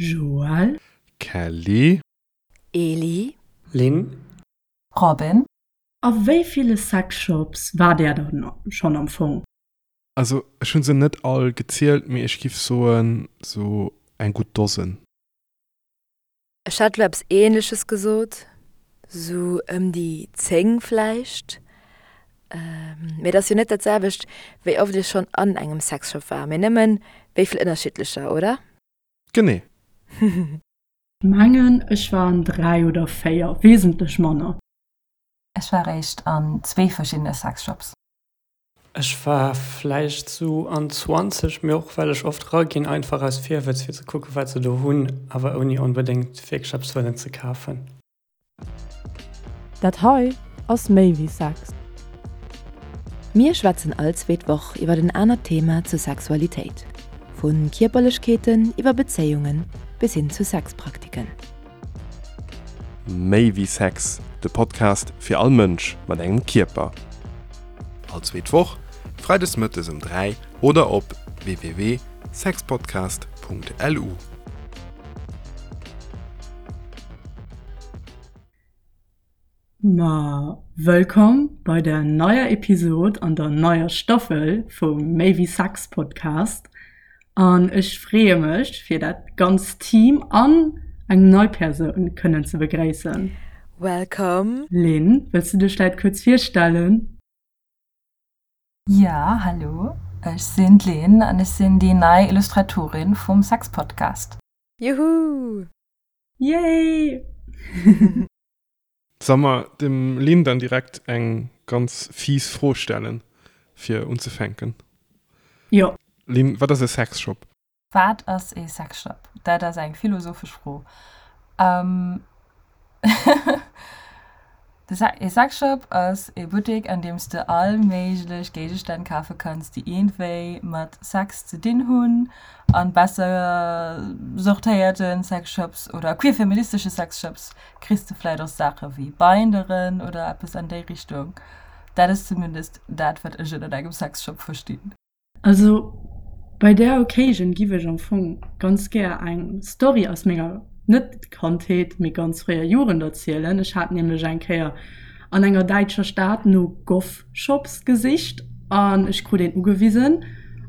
Joël. Kelly. Eli. Lynn. Robin. A wéi ville Sexshops war där dann schonn am Fong? Also ech hunn se net all gezielt, mee ech giff soen sou eng gutt Dosen. Ech hat lo eppes ähnleches gesot, sou ëm déi 10 vläicht. Mee et ass jo net dat selwecht, wéi oft ech schonn an engem Sexshop war, mee nëmmen wéi vill ënnerschiddlecher, oder? Genee. Mengen ech war an 3 oder 4, wesentlech manner. Ech war réischt an zwee verschiddene Sexshops. Ech war vläicht sou an 20, mee och well ech oft raginn, einfach aus Virwëtz fir ze kucken wat se do hunn, awer ouni onbedéngt wierklech eppes wëllen ze kafen. Dat hei ass méi wéi Sex. Mir schwätzen all zweet Woch iwwer en anert Thema zur Sexualitéit, vu Kierperlechkeeten iwwer Bezéiungen bis hin zu Sexpraktiken. Méi wéi Sex, de Podcast fir all Mënsch mat engem Kierper. All zweet Woch, freides mëttes um 3 oder op www.sexpodcast.lu. Ma wëllkomm bei der neier Episod an der neier Staffel vum Méi wéi Sex Podcast. An ech freeë mech fir dat ganzt Team an eng nei Persoun kënnen ze begréissen. Welcome! Lynn, wëlls du dech vläit kuerz virstellen? Jo, hallo, ech sinn d'Lynn an ech sinn déi nei Illustratorin vum Sexpodcast. Juhu! Yay! Soll mer dem Lynn dann direkt eng ganz fies Fro stellen, fir unzefänken? Jo. Lynn, wat ass e Sexshop? Wat ass ee Sexshop? Dat ass eng philosophesch Fro. Ee Sexshop ass ee Buttek, an deem s de all méiglech Géigestänn kafe kanns, déi iergendwéi mat Sex ze dinn hunn. An besser sortéierte Sexshops oder queer-feministesche Sexshops kriss de vläit och Saache wéi Binderen oder eppes an déi Richtung. Dat ass zumindest dat, wat ech ënnert engem Sexshop verstinn. Also bei där Occasion giff ech am Fong ganz gär eng Story aus menger, net Kandheet, mee ganz fréier Jugend erzielen. Ech hat nämlech eng Kéier an enger däitscher Stad no Goth-Shops gesicht an ech krut een ugewisen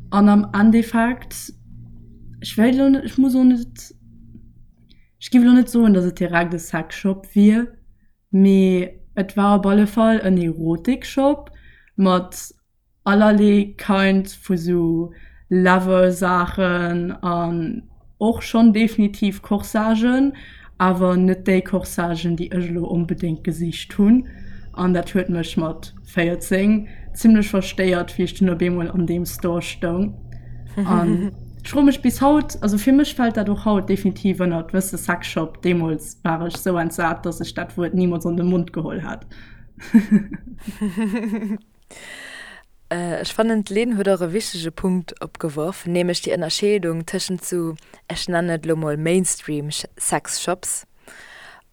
an am Endeffekt, ech wéilt elo net, ech muss och net, Ech giff elo net soen, dass et direkt e Sexshop wier, mee et war op alle Fall en Erotikshop mat allerlee Kind vu sou Lover-Saachen an och schonn definitiv Corsagen, awer net déi Corsagen, déi ech elo onbedéngt gesicht hunn. An dat huet mech mat 14 zimlech verstéiert, wéi ech dunn op eemol an deem Store stoung. An ech froe mech bis haut, also fir mech fält dat och haut definitiv ënnert, wëss de, Sexshop. Deemools war ech sou entsat, dass ech dat Wuert nimools an de Mond geholl hätt. Ech fannen, d'Lynn huet och e wichtege Punkt opgeworf, nämlech déi Ënnerscheedung tëschent sou, ech nennen et elo mol Mainstream Sexshops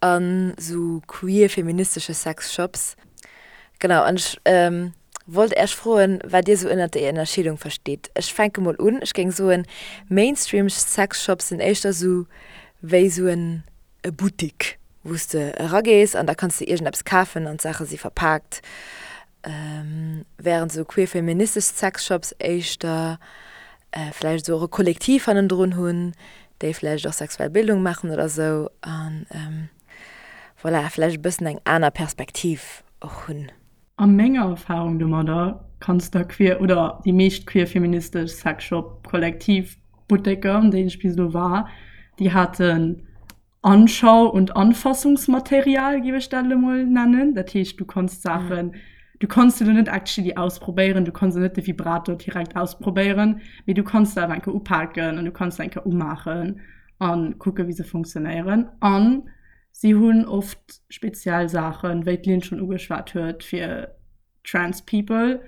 an sou queer-feministesche Sexshops. Genau, an ech wollt Äech froen, wat Dir sou ënnert déi Ënnerscheedung verstitt. Ech fänke mol un, Ech géing soen, Mainstream Sexshops sinn éischter sou wéi sou en e Buttik, wou s de eragees an da kanns de iergendeppes kafen an d'Saache si verpaakt, wärend sou queer-feministesch Sexshops éischter vläicht esou och e Kollektiv hannendrun hunn, déi vläicht och sexuell Bildung maachen oder sou an voilà, vläicht e bëssen eng aner Perspektiv och hunn. A menger Erfahrung domadder kanns der queer oder déi meescht queer-feministesch Sexshop-Kollektiv Butteker, an deenen ech bis elo war, déi haten Anschau und Anfassungsmaterial, géif ech dat elo mol nennen. Dat heescht, du konns Saachen, du konns se elo net actually ausprobéieren, du konns elo net de Vibrator direkt ausprobéieren, mee du konns se awer eng Kéier upaken an du konns se eng Kéier umaachen a kucken, wéi se funktionéieren. An si hunn oft speziell Saachen, wéi d'Lynn schonn ugeschwat huet, fir trans people,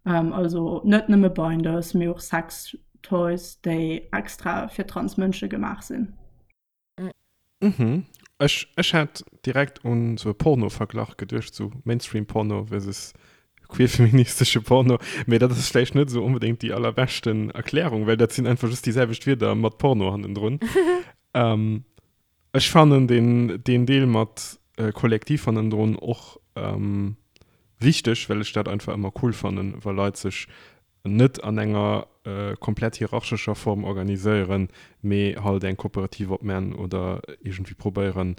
also net nëmme Binders, mee och Sextoys, déi extra fir trans Mënsche gemaach sinn. Mhm. Ech, ech hat direkt un sou e Porno-Verglach geduecht, sou Mainstream-Porno versus queer-feministesche Porno. Mee dat ass vläicht net sou onbedéngt déi allerbeschten Erklärung, well dat sinn einfach just déi selwecht Wierder mat Porno hannendrun. Ech fannen deen, deen Deel mat Kollektiv hannendrun och wichteg, well ech dat einfach ëmmer cool fannen, wa Leit sech net an enger komplett hierarchescher Form organiséieren, mee halt eng Kooperativ opman oder iergendwéi probéieren,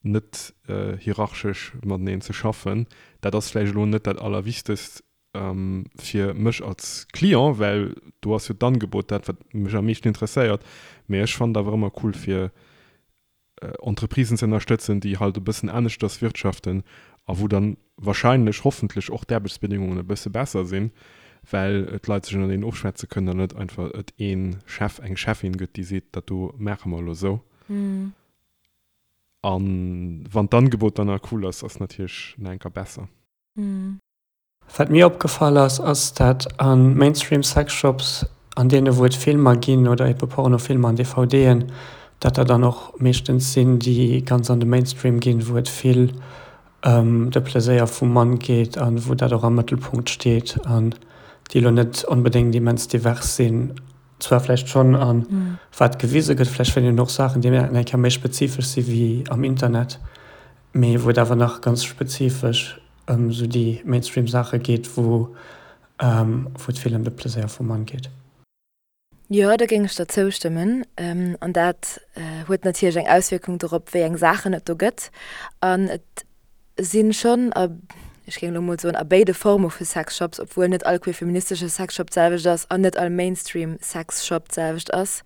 net hierarchesch mateneen ze schaffen. Dat ass vläicht elo net dat Allerwichtegst fir mech als Client, well do ass jo d'Angebot dat, wat mech am meeschten interesséiert, mee ech fannen et awer ëmmer cool, fir Entreprisen ze ënnerstëtzen, déi halt e bëssen aneschters wirtschaften a wou dann wahrscheinlech, hoffentlech och d'Aarbechtsbedingungen e bësse besser sinn, well d'Leit sech ënnerteen ofschwätze kënnen an net einfach et ee Chef, eng Cheffin gëtt, déi seet, dat do maache mer elo esou. A wann d'Angebot dann nach cool ass, ass natierlech nach enker besser. Wat mir opgefall ass, ass dat a Mainstream Sexshops, an deene wou et Filmer ginn oder ebe Pornofilmer an DVDen, dat der dann och meeschtens sinn, déi ganz an de Mainstream ginn, wou et vill ëm de Pleséier vum Mann geet a wou dat och am Mëttelpunkt steet an déi elo net onbedéngt immens divers sinn. Zwar vläicht schonn a wat gewise gëtt, vläicht fënnt een och Saachen, déi eng Kéier méi spezifesch si wéi am Internet, mee wou et awer nach ganz spezifesch ëm esou déi Mainstream Saache geet, wou wou et vill ëm de Pleséier vum Mann geet. Jo, do géing ech der zoustëmmen. An dat huet natierlech eng Auswierkung dorop, wéi eng Saachen et do gëtt. An et si schonn a, ech géing elo mol soen, a béide Forme vu Sexshops, obwuel net all queerfeministesche Sexshop d'selwecht ass an net all Mainstream Sexshop d'selwecht ass.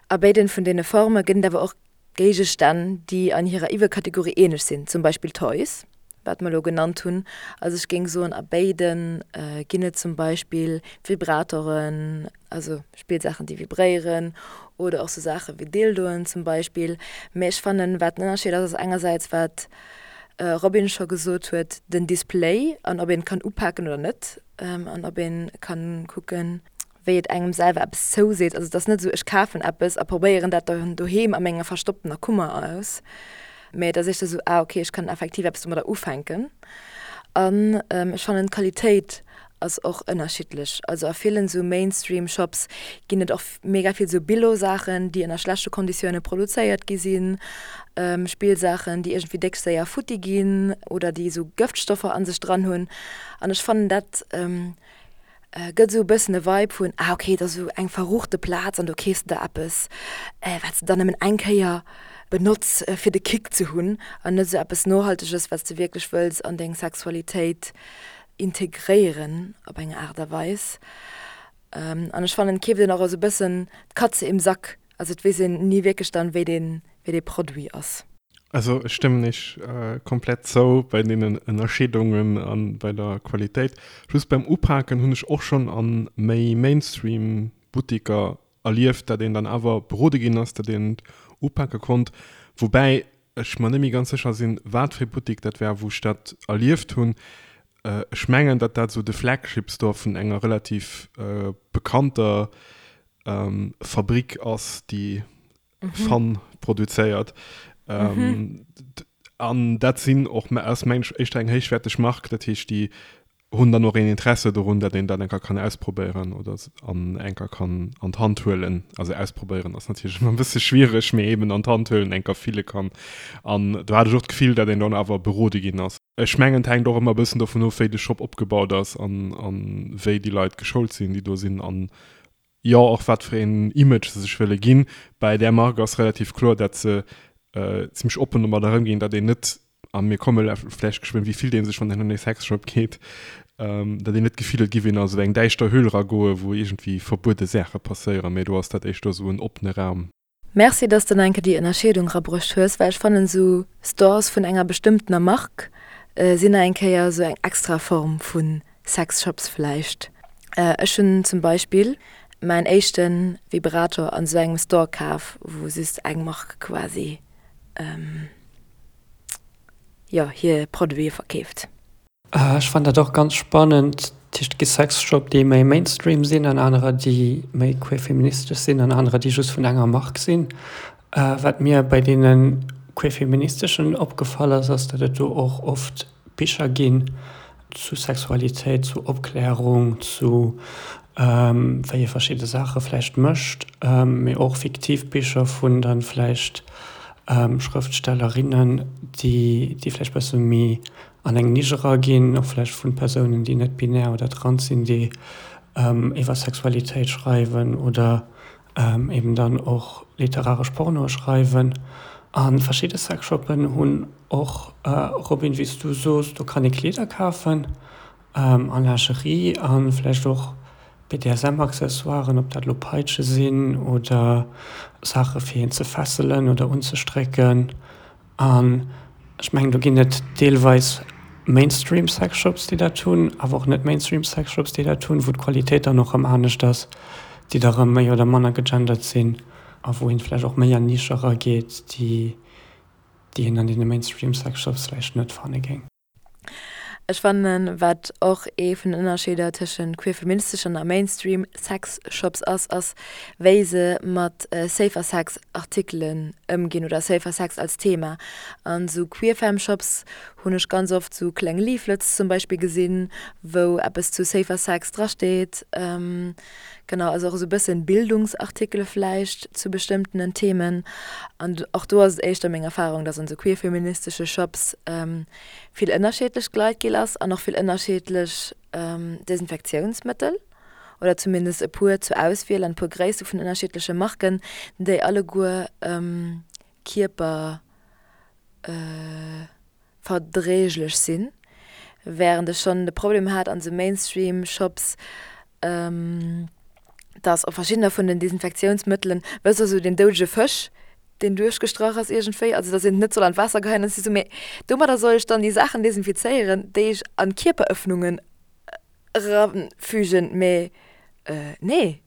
A béiden vun deene Forme gëtt et awer och Géigestänn, déi an hirer Iwwerkategorie ähnlech sinn, zum Beispill Toys, wat mer elo genannt hunn. Also ech géing soen, a béide ginn et zum Beispill Vibratoren, also Spillsaachen, déi vibréieren, oder och sou Saache wéi Dildoen zum Beispill. Mä ech fannen, wat den Ënnerscheed ass, ass engersäits, wat Robin scho gesot huet, den Display an ob een et kann upaken oder net an ob ee kann kucken, wéi et engem selwer eppes zouseet. Also et ass net esou, ech kafen eppes a probéieren dat dann doheem a menger verstopptener Kummer aus, mä et ass éischter esou, ah okay, ech kann effektiv eppes domadder ufänken. An ech fannen d'Qualitéit ass och ënnerschiddlech. Also a villen esou Mainstream-Shops ginn et och mega vill esou Billo-Saachen, déi ënner schlechte Konditioune produzéiert gi sinn, Spillsaachen, déi iergendwéi déck séier futti ginn oder déi esou Gëftstoffer a sech dran hunn. An ech fannen dat Gëtt esou e bëssen e Vibe vun, ah ok, et ass esou eng verruchte Plaz an do keefs de der eppes, wat s de dann nëmmen eng Kéier benotz fir de Kick ze hunn an net esou eppes Nohalteges, wat s de wierklech wëlls an deng Sexualitéit integréieren op eng Aart a Weis. An ech fannen, et keeft een och esou e bëssen d'Katze im Sack. Also et weess een ni wierklech dann, wéi dee, wéi dee Produit ass. Also ech stëmmen iech komplett zou bei deenen Ënnerscheedungen a bei der Qualitéit. Just beim Upaken hunn ech och schonn a méi Mainstream Buttiker erlieft, dat een dann awer berode ginn ass, dat een et upake konnt. Woubäi ech mer net méi ganz sécher sinn, wat fir e Buttik dat war, wou ech dat erlieft hunn. Ech mengen, datt dat esou de Flagship Store vun enger relativ bekannter Fabrik ass, déi Fun produzéiert. An dat sinn och ass mengen ech éischter eng héichwäerteg Mark, dat heescht déi hunn dann och een Interesse dorun, datt een dat enker kann ausprobéieren oder an enker kann an d'Hand huelen. Also ausprobéieren ass natierlech ëmmer e bësse schwiereg, mee eben an d'Hand huelen, enker fille kann. An do hat ech och d'Gefill, datt een dann awer berode ginn ass. Ech mengen et hänkt och ëmmer e bëssen dovun of, wéi de Shop opgebaut ass an wéi déi Leit geschoult sinn, déi do sinn an jo och wat fir een Image se sech wëlle ginn. Bei där Mark ass relativ kloer, dat se zimmlech oppen domadder ëmginn, datt een net, a mir komme vläicht geschwënn, wéi fillt ee sech, wann een an ee Sexshop geet, datt een net d'Gefill huet, et giff een a sou eng däischter Höhl eragoen, wou iergendwéi verbuede Saache passéieren, mee do ass dat éischter sou en oppene Raum. Merci dass de nach eng Kéier déi Ënnerscheedung rabruecht hues, well ech fannen sou Stores vun enger bestëmmtener Mark sinn nach eng Kéier sou eng extra Form vu Sexshops vläicht. Ech hunn zum Beispill mäin éischte Vibrator an sou engem Store kaf, wou just eng Mark quasi jo hir Produite verkeeft. Ech fannen dat och ganz spannend. Dat heescht, et gi Sexshop, déi méi Mainstream sinn an anerer, déi méi queer-feministesch sinn an anerer, déi just vun enger Mark sinn. Wat mir bei deene queer-feministeschen opgefall ass, ass, datt et do och oft Bicher ginn zu Sexualitéit, zu Opklärung, zu. wéi ee verschidde Saache vläicht mécht, mee och fiktiv Bicher vun dann vläicht Schrëftstellerinnen, déi déi vläicht bësse méi an eng Nisch eraginn, och vläicht vu Persounen, déi net binär oder trans sinn, déi iwwer Sexualitéit schreiwen oder eben dann och literaresch Pornoe schreiwen. A verschidde Sexshoppen hunn och, Robin, wéi s du soos, do kann ee Kleeder kafen a Lingerie a vläicht och BDSM-Accessoiren, ob dat elo Peitsche sinn oder Saache fir een ze fesselen oder unzestrécken. An ech mengen, do ginn et deelweis Mainstream-Sexshops, déi dat hunn, awer och net Mainstream-Sexshops, déi dat hunn, wou d'Qualitéit dann och erëm anescht ass, déi da erëm méi oder manner gegendert sinn a wou een vläicht och méi an Nische erageet, déi déi een an deene Mainstream-Sexshops vläicht net fanne géing. Ech fannen, wat och ee vun den Ënnerscheeder tëschent queer-feministeschen a Mainstream Sex-Shops ass, ass wéi se mat Safer Sex Artikelen ëmginn oder Safer Sex als Thema. An sou Queer-Femme Shops hunn ech ganz oft sou kleng Leaflets zum Beispill gesinn, wou eppes zu Safer Sex drasteet. Genau, also och esou e bëssen Bildungsartikele vläicht zu bestëmmtenen Themen. An och do ass et éischter meng Erfahrung, dass an esou queerfeministesche Shops vill ënnerschiedlech Gleitgel ass an och vill ënnerschiedlech Desinfektiounsmëttel oder zumindest e puer zur Auswiel an e puer Gréisste vun ënnerschiedleche Marken, déi alleguer Kierper verdréiglech sinn, während ech schonn de Problem hat an sou Mainstream Shops, dass op verschiddener vun den Desinfektiounsmëttelen, wësst der, sou den doudege Fësch, deen duerchgestrach ass iergendwéi, also dass een et net soll an d'Waasser geheien, an ech si sou, mee domadder soll ech dann déi Saachen desinfizéieren, déi ech an d'Kierperëffnungen erafügen, mee nee,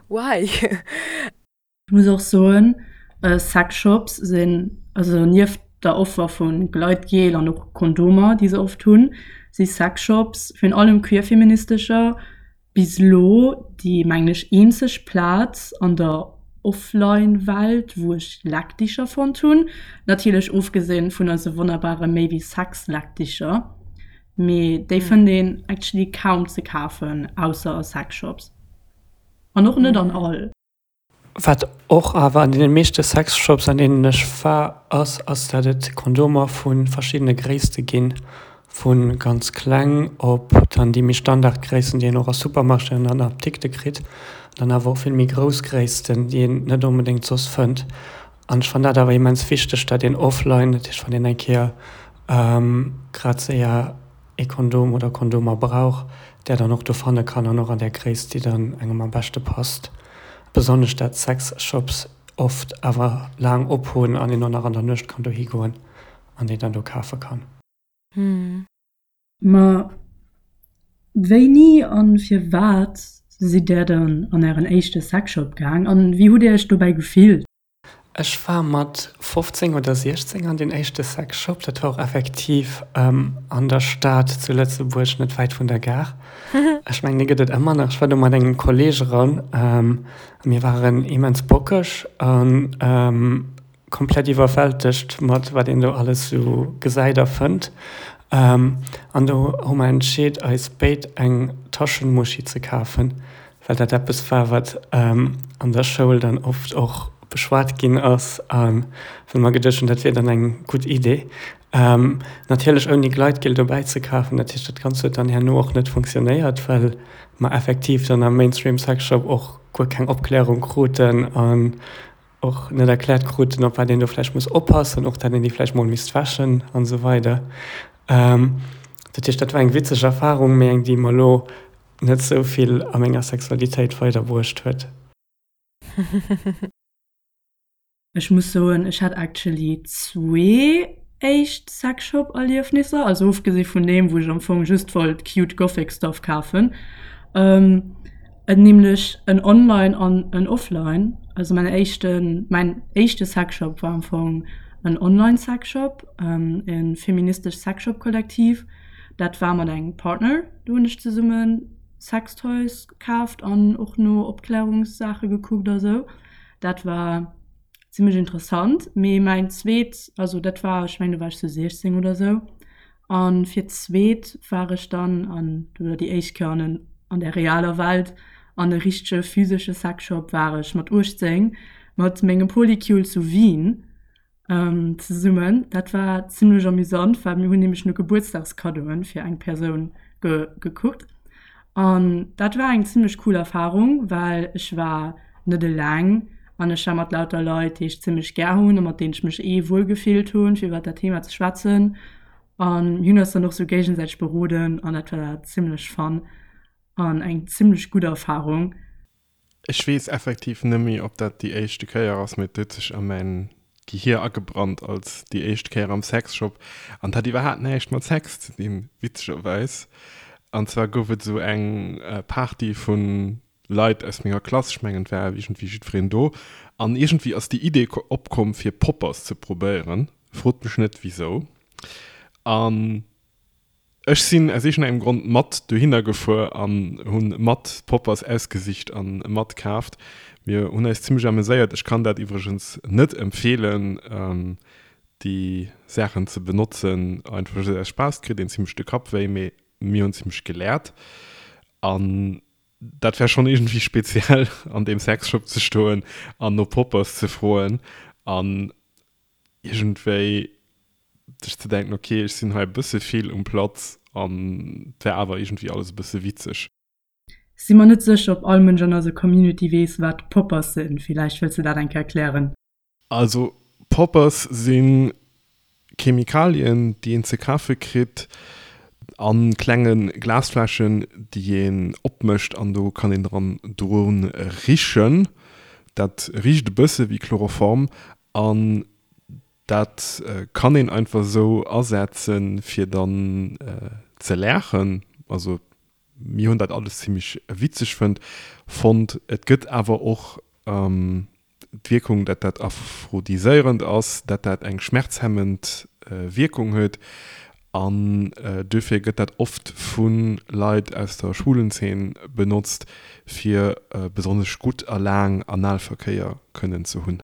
why? Ech muss och soen, Sexshops sinn, also nieft der Offer vu Gleitgel an och Kondomer, déi se oft hunn, si Sexshops, virun allem queerfeministescher, bis elo déi, mengen ech, eenzeg Plaz an der Offline-Welt, wou ech Leckdicher fonnt hunn. Natierlech ofgesinn vun eise wonnerbare Méi wéi Sex-Leckdicher, mee déi fënnt een actually kaum ze kafen, ausser a Sexshops. An och net an all. Wat och awer an deene meeschte Sexshops, an deenen ech war, ass, ass dat et Kondomer vu verschiddene Gréisste ginn, vu ganz kleng op dann déi méi Standardgréissten, déi een och a Supermarchéen an an Apdikte kritt, an dann awer och vill méi grouss Gréissten, déi een net onbedéngt soss fënnt. An ech fannen dat awer immens wichteg, dat een offline, dat heescht wann een eng Kéier grad séier ee Kondom oder Kondomer brauch, där dann och do fanne kann an och an där Gréisst, déi dann engem am beschte passt. Besonnesch dat Sexshops oft awer laang op hunn an een och nach an der Nuecht kann dohi goen an déi dann do kafe kann. Ma wéini an firwat sidd där dann an ären éischte Sexshop gaang an wéi hutt dir iech dobäi gefillt? Ech war mat 15 oder 16 an deen éischte Sexshop. Dat war och effektiv an der Stad zu Lëtzebuerg, net wäit vun der Gare. Ech mengen, dee gëtt et ëmmer nach. Ech war do mat engem Kolleeg eran a mir waren immens bockeg a komplett iwwerwältegt mat wat een do alles sou gesäit a fënnt. An do hu mer entscheet, eis béid eng Taschenmuschi ze kafen. well dat eppes war, wat an der Schoul dann oft och beschwat ginn ass a wou mer geduecht hunn, dat wier dann eng gutt Idee. Natierlech ouni Gleitgel dobäi ze kafen. Dat heescht, dat Ganzt huet dann herno och net funktionéiert, well mer effektiv dann am Mainstream Sexshop och guer keng Opklärung kruten an och net erkläert kruten, op wat een do vläicht muss oppassen, och dat een déi vläicht mol misst wäschen an esou weider. Dat heescht, dat war eng witzeg Erfarung, mee eng, déi mer elo net sou vill a menger Sexualitéit weiderbruecht huet. Ech muss soen, ech hat actually zwee éischt Sexshop-Erliefnisser, also ofgesi vun deem, wou ech am Fong just wollt cute gothic stuff kafen, nämlech en online an en offline. Also mäin éischten, mäin éischte Sexshop war am Fong en online Sexshop, e feministescht Sexshop-Kollektiv. Dat war mat engem Partner, do hunn ech zesumme Sextoys kaaft an och no Opklärungssaache gekuckt a sou. Dat war zimmlech interessant. Mee mäin zweet, also dat war, ech mengen do war ech sou 16 oder sou. A fir d'zweet war ech dann an, oder déi éischt Kéier an en. An der realer Welt an e richtege physesche Sexshop war ech mat 18 mat mengem Polycule zu Wien zesummen. Dat war zimmlech amüsant, well mir hunn nämlech no Gebuertsdagskaddoen fir eng Persoun gekuckt. An dat war eng zimmlech cool Erfarung, well ech war net eleng an ech war mat lauter Leit, déi ech zimmlech gär hunn a mat deenen ech mech eh wuel gefillt hunn, fir iwwer dat Thema ze schwätzen. An mir hunn eis dann och sou géigesäiteg beroden an dat war zimmlech fun an eng zimmlech gutt Erfarung. Ech weess effektiv nëmmi ob dat déi éischte Kéier ass, mee et huet sech a mäin Gehier agebrannt als déi éischt Kéier am Sexshop an et hat iwwerhaapt näischt mat Sex ze dinn, witzegerweis. An zwar gouf et esou eng Party vu Leit aus menger Klass, ech mengen et war iergendwéi jiddwereen do, an iergendwéi ass déi Idee opkomm fir Poppers ze probéieren, frot mech net wisou. An ech sinn aus iergendengem Grond mat dohinner gefuer an hunn mat Poppers ausgesicht an mat kaaft. Mir hunn eis zimmlech ameséiert. Ech kann dat iwwregens net empfeelen déi Saachen ze benotzen, einfach just aus Spaass, kritt een zimmlech de Kapp wéi, mee mir hunn zimmlech geläert an dat wär schonn iergendwéi speziell an deem Sexshop ze stoen an no Poppers ze froen an iergendwéi sech ze denken, ok, ech sinn hei e bësse vill um Platz an et wär awer iergendwéi alles e bësse witzeg. Si mer net sécher, ob all Mënsch an eiser Community weess, wat Poppers sinn. Villäicht wëlls de dat eng Kéier erklären? Also Poppers si Chemikalien, déi een ze kafe kritt a klenge Glasfläschen, déi een opmécht an do kann een dran dru richen. Dat richt e bësse wéi Chloroform an dat kann een einfach esou asetzen, fir dann ze laachen. Also mir hunn dat alles zimmlech witzeg fënnt fonnt. Et gëtt awer och d'Wierkung, dat dat aphrodiséierend ass, dat dat eng schmerzhemmend Wierkung huet an duerfir gëtt dat oft vu Leit aus der Schwulenzeen benotzt, fir besonnesch gutt a laang Analverkéier kënnen ze hunn.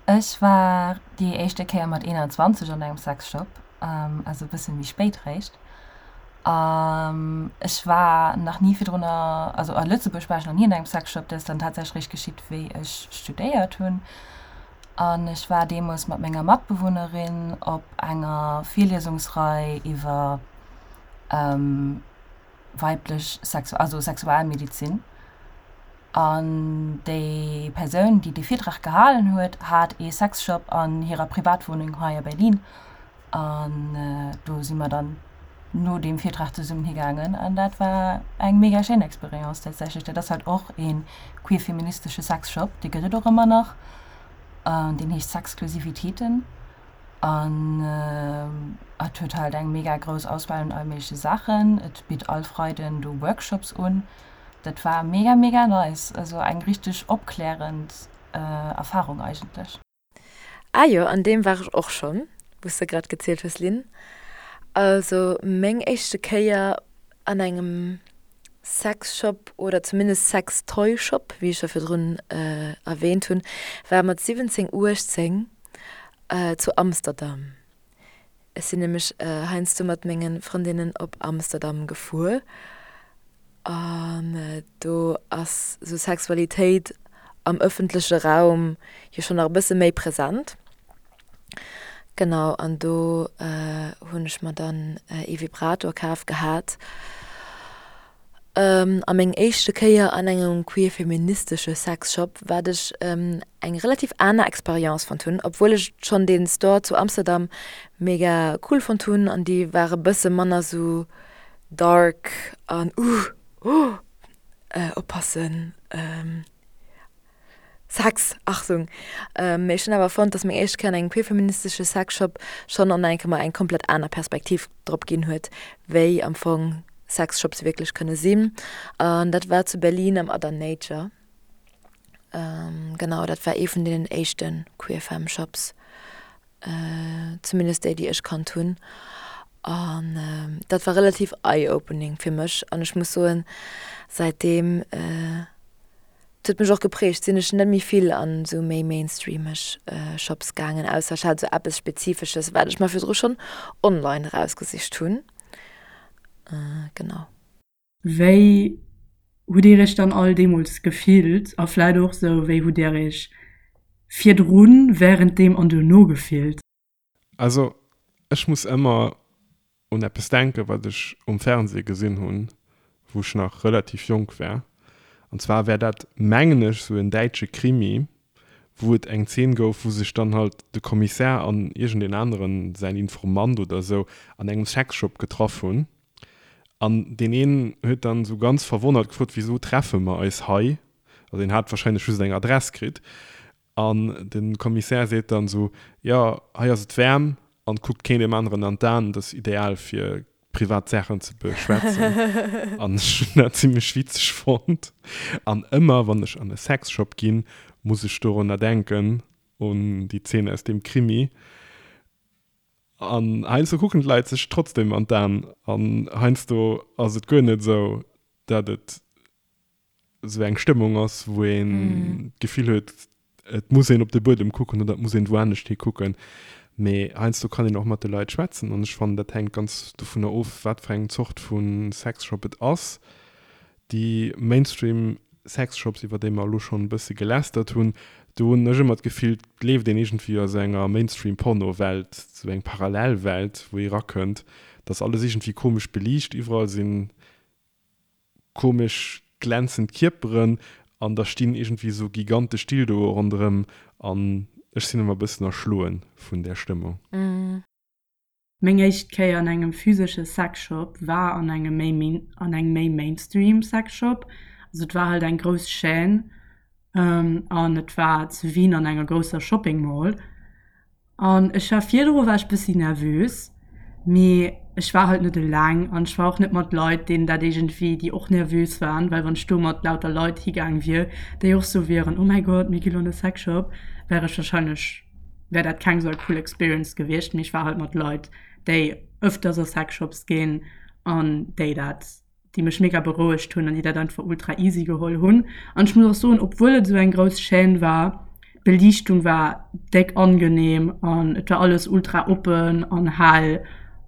Ech war déi éischte Kéier mat 21 an engem Sexshop, also e bësse méi spéit réischt. Ech war nach ni virdrun, also a Lëtzebuerg war ech nach ni an engem Sexshop, dat ass dann tatsächlech réischt geschitt, wéi ech studéiert hunn. An ech war deemools mat menger Matbewunnerin op enger Virliesungsrei iwwer weiblech Sexu also Sexualmedizin. An déi Persoun, déi dee Virtrag gehalen huet, hat ee Sexshop an hirer Privatwunneng hei a Berlin. An do si mer dann no deem Virtrag zesummen higaangen. An dat war eng mega schéin Experience tatsächlech. Dat ass halt och ee queer-feministesche Sexshop, dee gëtt et och ëmmer nach. An deen heescht Sexklusivitäten. An et huet halt eng mega grouss Auswahl un all méigleche Saachen. Et bitt all Freiden do Workshops un. Dat war mega mega nice, also eng richteg opklärend Erfahrung eigentlech. Ah jo, an deem war ech och schonn, wou s de grad gezielt hues, Lynn. Also meng éischte Kéier an engem Sexshop oder zumindest Sextoyshop, wéi ech scho virdrun erwähnt hunn, war mat 17, 18 zu Amsterdam. Ech sinn nämlech heiansdo mat menge Frëndinnen op Amsterdam gefuer an do ass sou Sexualitéit am ëffentleche Raum jo schonn nach e bësse méi present. Genau, an do hunn ech mer dann ee Vibrator kaf gehat. A meng éischte Kéier an engem queer-feministesche Sexshop, wat ech eng relativ aner Experience fonnt hunn, obwuel ech schonn dee Store zu Amsterdam mega cool fonnt hunn an déi ware bësse manner sou dark an uh oh oppassen. Sex, Achtung! Mee ech hunn awer fonnt, dass meng éischt Kéier an engem queerfeministesche Sexshop schonn an enke mer eng komplett aner Perspektiv drop ginn huet, wéi am Fong Sexshops wierklech kënne sinn. An dat war zu Berlin am Other Nature. Genau, dat war ee vun deenen éischte Queerfem-Shops, zumindest déi, déi ech kannt hunn. An dat war relativ eye-opening fir mech. An ech muss soen, säitdeem Et huet mech och geprägt, sinn ech net méi vill an esou méi mainstreameg Shops gaangen, ausser ech hat esou eppes Spezifesches, wat ech mer virdru schonn online erausgesicht hunn. Genau. Wéi. hutt Dir Iech dann all deemools gefillt a vläit och sou, wéi hutt Dir Iech virdrun, wärenddeem an duerno gefillt? Also ech muss ëmmer un eppes denken, wat ech um Fernseh gesinn hunn, wou ech nach relativ jonk war. An zwar war dat, mengen ech, sou en däitsche Krimi, wou et eng Zeen gouf, wou sech dann halt de Kommissär an iergendeen aneren, säin Informant oder sou, an engem Sexshop getraff hunn. An deen een huet dann sou ganz verwonnert gefrot, Wisou treffe mer eis hei? Also deen hat wahrscheinlech just eng Adress kritt. An de Kommissär seet dann esou, Jo, hei ass et waarm an kuckt keen deem aneren an d'Aen, dat ass ideal fir privat Saachen ze beschwätzen. An ech hunn dat zimmlech witzeg fonnt. An ëmmer wann ech an e Sexshop ginn, muss ech dorunner denken, un déi Zeen aus deem Krimi. An heiansdo kucken d'Leit sech trotzdem an d'Aen an heiansdo ass et guer net esou, dat et esou eng Stëmmung ass, wou een d'Gefill huet, et muss een op de Buedem kucken oder et muss een wou anescht hi kucken. Mee heiansdo kann een och mat de Leit schwätzen an ech fannen, dat hänkt ganz dovunner of, wat fir eng Zort vu Sexshop et ass. Déi Mainstream Sexshops, iwwer déi mer elo schonn e bësse gelästert hunn, do hunn ech ëmmer d'Gefill, et leeft een iergendwéi a sou enger Mainstream-Porno-Welt, sou eng Parallelwelt, wou ee rakënnt. Et ass alles iergendwéi komesch beliicht, iwwerall sinn komesch glänzend Kierperen an da stinn iergendwéi esou gigantesch Dildoe ronderëm an ech sinn ëmmer e bëssen erschloen vun där Stëmmung. Meng éischt Kéier an engem physesche Sexshop war an engem méi an engem méi Mainstream Sexshop. Also et war halt eng grouss Chaîne an et war zu Wien an enger grousser Shopping Mall. An ech war virdru war ech bëssi nervös, mee ech war halt net eleng an ech war och net mat Leit, deenen dat iergendwéi, déi och nervös waren, well wann ech do mat lauter Leit higaang wier, déi och sou wieren, oh mäi Gott, mir gi lo an de Sexshop, wär ech warscheinlech, wär dat keng sou cool Experience gewiescht. Mee ech war halt mat Leit, déi ëfters a Sexshops ginn an déi dat déi mech mega berouegt hunn an déi dat einfach ultra easy geholl hunn. An ech muss och soen, obwuel et esou eng grouss Chaîne war, d'Beliichtung war déck angenehm an et war alles ultra oppen an hell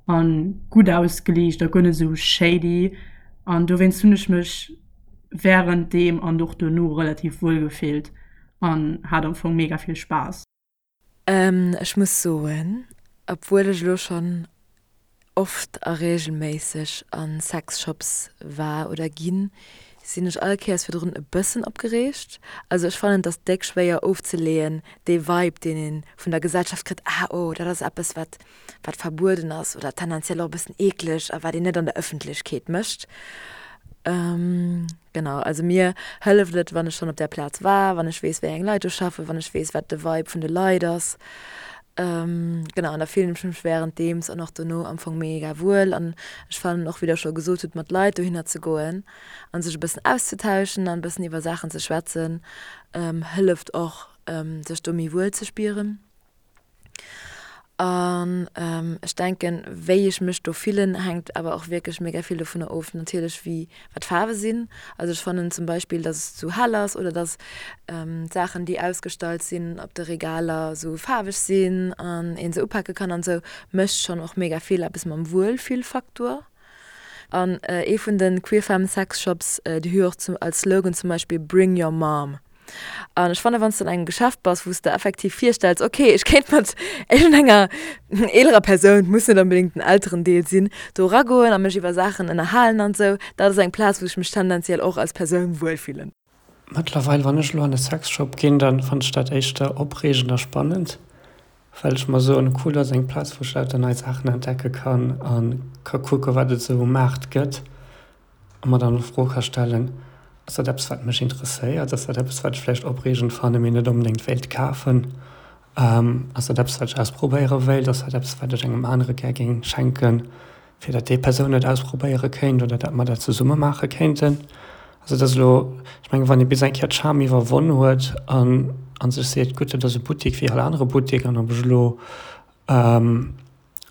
an gutt ausgeliicht a guer net esou shady. An dowéinst hunn ech mech wärend deem an och dono relativ wuel gefillt an hat am Fong mega vill Spaass. Ech muss soen, obwuel ech elo schonn oft a reegelméisseg a Sexshops war oder ginn, sinn ech all Kéiers virdrun e bëssen opgereegt. Also ech fannen, et ass déck schwéier ofzeleeën, dee Vibe, deen ee vun der Gesellschaft kritt, ah oh, dat ass eppes, wat wat verbueden ass oder tendenziell och e bëssen eekleg a wat een net an der Ëffentlechkeet mécht. Genau, also mir hëlleft et, wann ech schonn op där Plaz war, wann ech weess, wéi eng Leit do schaffen, wann ech weess, wat de Vibe vun de Leit ass. Genau, an da fillen ech mech wärenddeems an och dono am Fong mega wuel. An ech fannen och, wéi Der scho gesot hutt, mat Leit dohinner ze goen a sech e bëssen auszutauschen an e bëssen iwwer Saachen ze schwätzen, hëlleft och, sech do méi wuel ze spieren. An ech denken, wéi ech mech do fillen, hänkt awer och wierklech mega vill dovunner of natierlech wéi wat d'Faarwe sinn. Also ech fannen zum Beispill, dass et zu hell ass oder dass d'Saachen déi ausgestallt sinn op de Regaler esou faarweg sinn an een se upake kann an esou, mécht schonn och mega vill eppes mam Wuelfillfaktor. An ee vun de Queer Femme Sex Shops, déi hu jo och als Slogan zum Beispill Bring your mom. An ech fannen, wann s de an engem Geschäft bass, wou s de effektiv virstells, ok, ech kéint mat iergendenger eelerer Persoun, et muss net onbedéngt den Elterendeel sinn, do eragoen a mech iwwer Saachen ënnerhalen an esou, dat ass eng Plaz, wou ech mech tendenziell och als Persoun wuelfillen. Mëttlerweil, wann ech elo an e Sexshop ginn, dann fannen ech dat éischter opreegend a spannend, well ech mer soen, cool, dat ass eng Plaz, wou ech lauter nei Saachen entdecke kann a ka kucke wat et esou um Maart gëtt. A mer dann d'Fro ka stellen, Ass dat eppes, wat mech interesséiert? Ass dat eppes, wat ech vläicht opreegend fannen, mee net onbedéngt wéilt kafen? Ass dat eppes, wat ech ausprobéiere wéilt? Ass dat eppes, wat ech engem anere gär géing schenken, fir datt déi Persoun et ausprobéiere kéint oder datt mer dat zesumme maache kéinten? Also et ass elo, ech mengen, wann ee bis eng Kéier d'Scham iwwerwonn huet an a sech seet, Gutt, dat ass e Buttek wéi all anere Buttek an ob ech elo an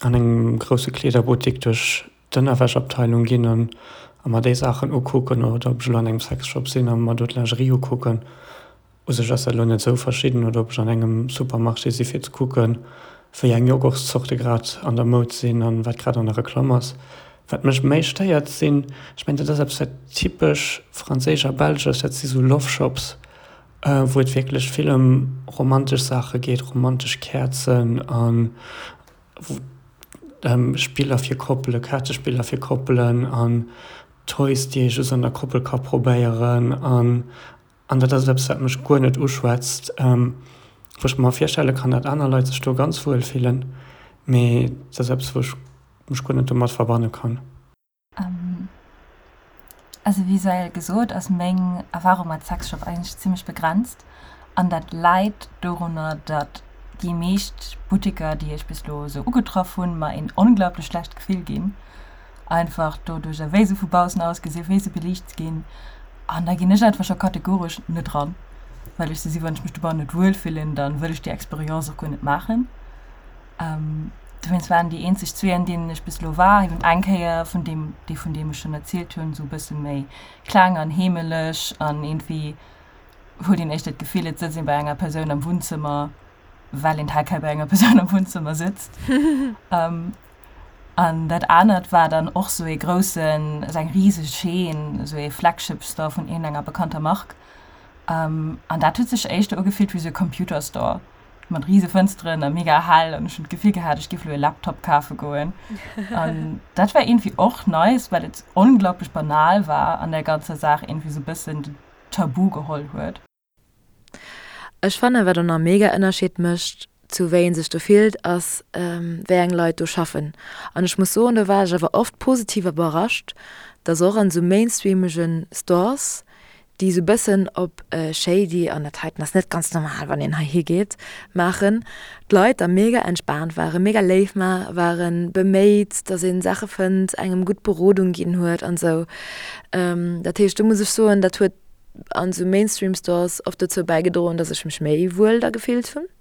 engem grousse Kleederbuttek duerch d'Ënnerwäschabteilung ginn an a mer déi Saachen ukucken oder ob ech elo an engem Sexshop sinn a mer do d'Lingerie ukucken. U sech ass dat elo net esou verschidden. Oder ob ech an engem Supermarché si fir ze kucken, wéi eng Joghurtszorte grad an der Moud sinn an wat grad an der Reklamm ass. Wat mech méi stéiert sinn, ech mengen dat ass eppes wat typesch franséisch a belsch ass, dat si sou Love Shops, wou et wierklech vill ëm romantesch Saache geet, romantesch Käerzen an Spiller fir Koppele, Kaartespiller fir Koppelen an Toys déi ee just an der Koppel ka probéieren an An dat ass eppes, wat mech guer net uschwätzt, wou ech mer virstelle kann, datt aner Leit sech do ganz wuel fillen, mee dat ass eppes, wou ech mech guer net domat verbanne kann. Also wéi sou gesot ass meng Erfahrung mat Sexshop eigentlech zimmlech begrenzt an dat läit dorunner, datt déi meescht Butteker, déi ech bis elo esou ugetraff hunn, mer een onglaublech schlecht Gefill ginn. Einfach doduercher wéi se vu baussen ausgesinn, wéi se beliicht ginn. An da ginn ech einfach scho kategoresch net ran, well ech sou si, wann ech mech dobannen net wuel fillen, dann wëll ech déi Experience och guer net maachen. Dowéinst waren déi eenzeg zwee, an deenen ech bis elo war, eben eng Kéier vun deem, dee vun deem ech schonn erzielt hunn, sou e bësse méi kleng an heemeleg an iergendwéi huet een éischter d'Gefill, et sëtzt een bei enger Persoun am Wunnzëmmer, well een tel quel bei enger Persoun am Wunnzëmmer sëtzt. An dat anert war dann och sou ee groussen, esou eng riseg Chaîne, esou ee Flagship Store vun iergendenger bekannter Mark. An dat huet sech éischter ugefillt wéi sou e Computer Store mat rise Fënsteren a mega hell an ech hunn d'Gefill gehat, ech géif elo e Laptop kafe goen. An dat war iergendwéi och nice, well et onglaublech banal war an der ganzer Saach iergendwéi sou e bëssen den Tabu geholl huet. Ech fannen wat och nach mega Ënnerscheed mécht zu wéi een sech do fillt ass wéi eng Leit do schaffen. An ech muss soen do war ech awer oft positiv iwwerrascht, dass och an sou mainstreamegen Stores déi sou bëssen op shady an dat heiten ass net ganz normal wann een hei higeet maachen, d'Leit da mega entspaant waren, mega léif waren, beméit dass een Saache fënnt, engem gutt Berodung ginn huet an sou. Dat heescht do muss ech soen dat huet an sou Mainstream Stores oft dozou bäigedroen, dass ech mech méi wuel da gefillt hunn.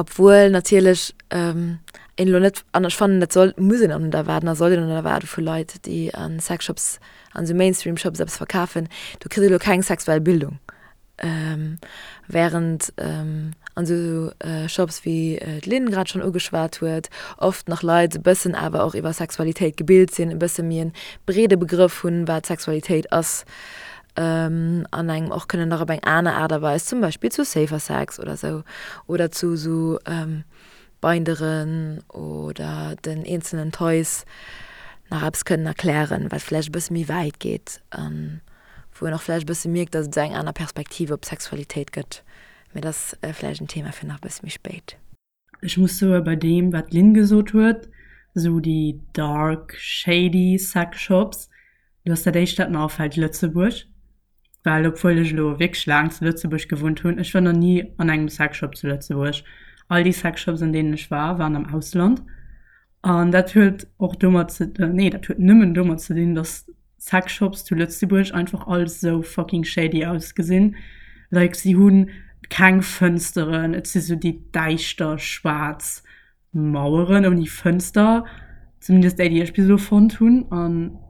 Obwuel natierlech een elo net, an ech fannen dat soll, muss een och net erwaarden a soll een och net erwaarde vu Leit, déi a Sexshops, an sou Mainstream Shops eppes verkafen, do kritt ee lo keng sexuell Bildung. Während an esou Shops, wéi d'Lynn grad schonn ugeschwat huet, oft nach Leit e bëssen awer och iwwer Sexualitéit gebilt sinn, e bësse méi e breede Begrëff hunn, wat Sexualitéit ass, an engem och kënnen nach op eng aner Aart a Weis, zum Beispill zu Safer Sex oder esou, oder zu esou Binderen oder den eenzelnen Toys nach eppes kënnen erklären, wat vläicht e bësse méi wäit geet a wou een och vläicht e bësse mierkt, datt et esou eng aner Perspektiv op d'Sexualitéit gëtt. Mee dat ass vläicht en Thema fir nach e bësse méi spéit. Ech muss soe bei deem wat d'Lynn gesot huet, esou déi dark shady sex shops, do ass dat éischt dat mer afält Lëtzebuerg. Well obwuel ech elo wierklech laang zu Lëtzebuerg gewunnt hunn, ech war nach ni an engem Sexshop zu Lëtzebuerg. All déi Sexshops an deenen ech war, waren am Ausland. An dat huet och domat ze, nee dat huet nëmmen domat ze dinn, dass Sexshops zu Lëtzebuerg einfach all sou fucking shady ausgesinn. Like si hu keng Fënsteren, et si sou déi däischter schwaarz Maueren ouni Fënster, zumindest déi, déi ech bis elo fonnt hunn an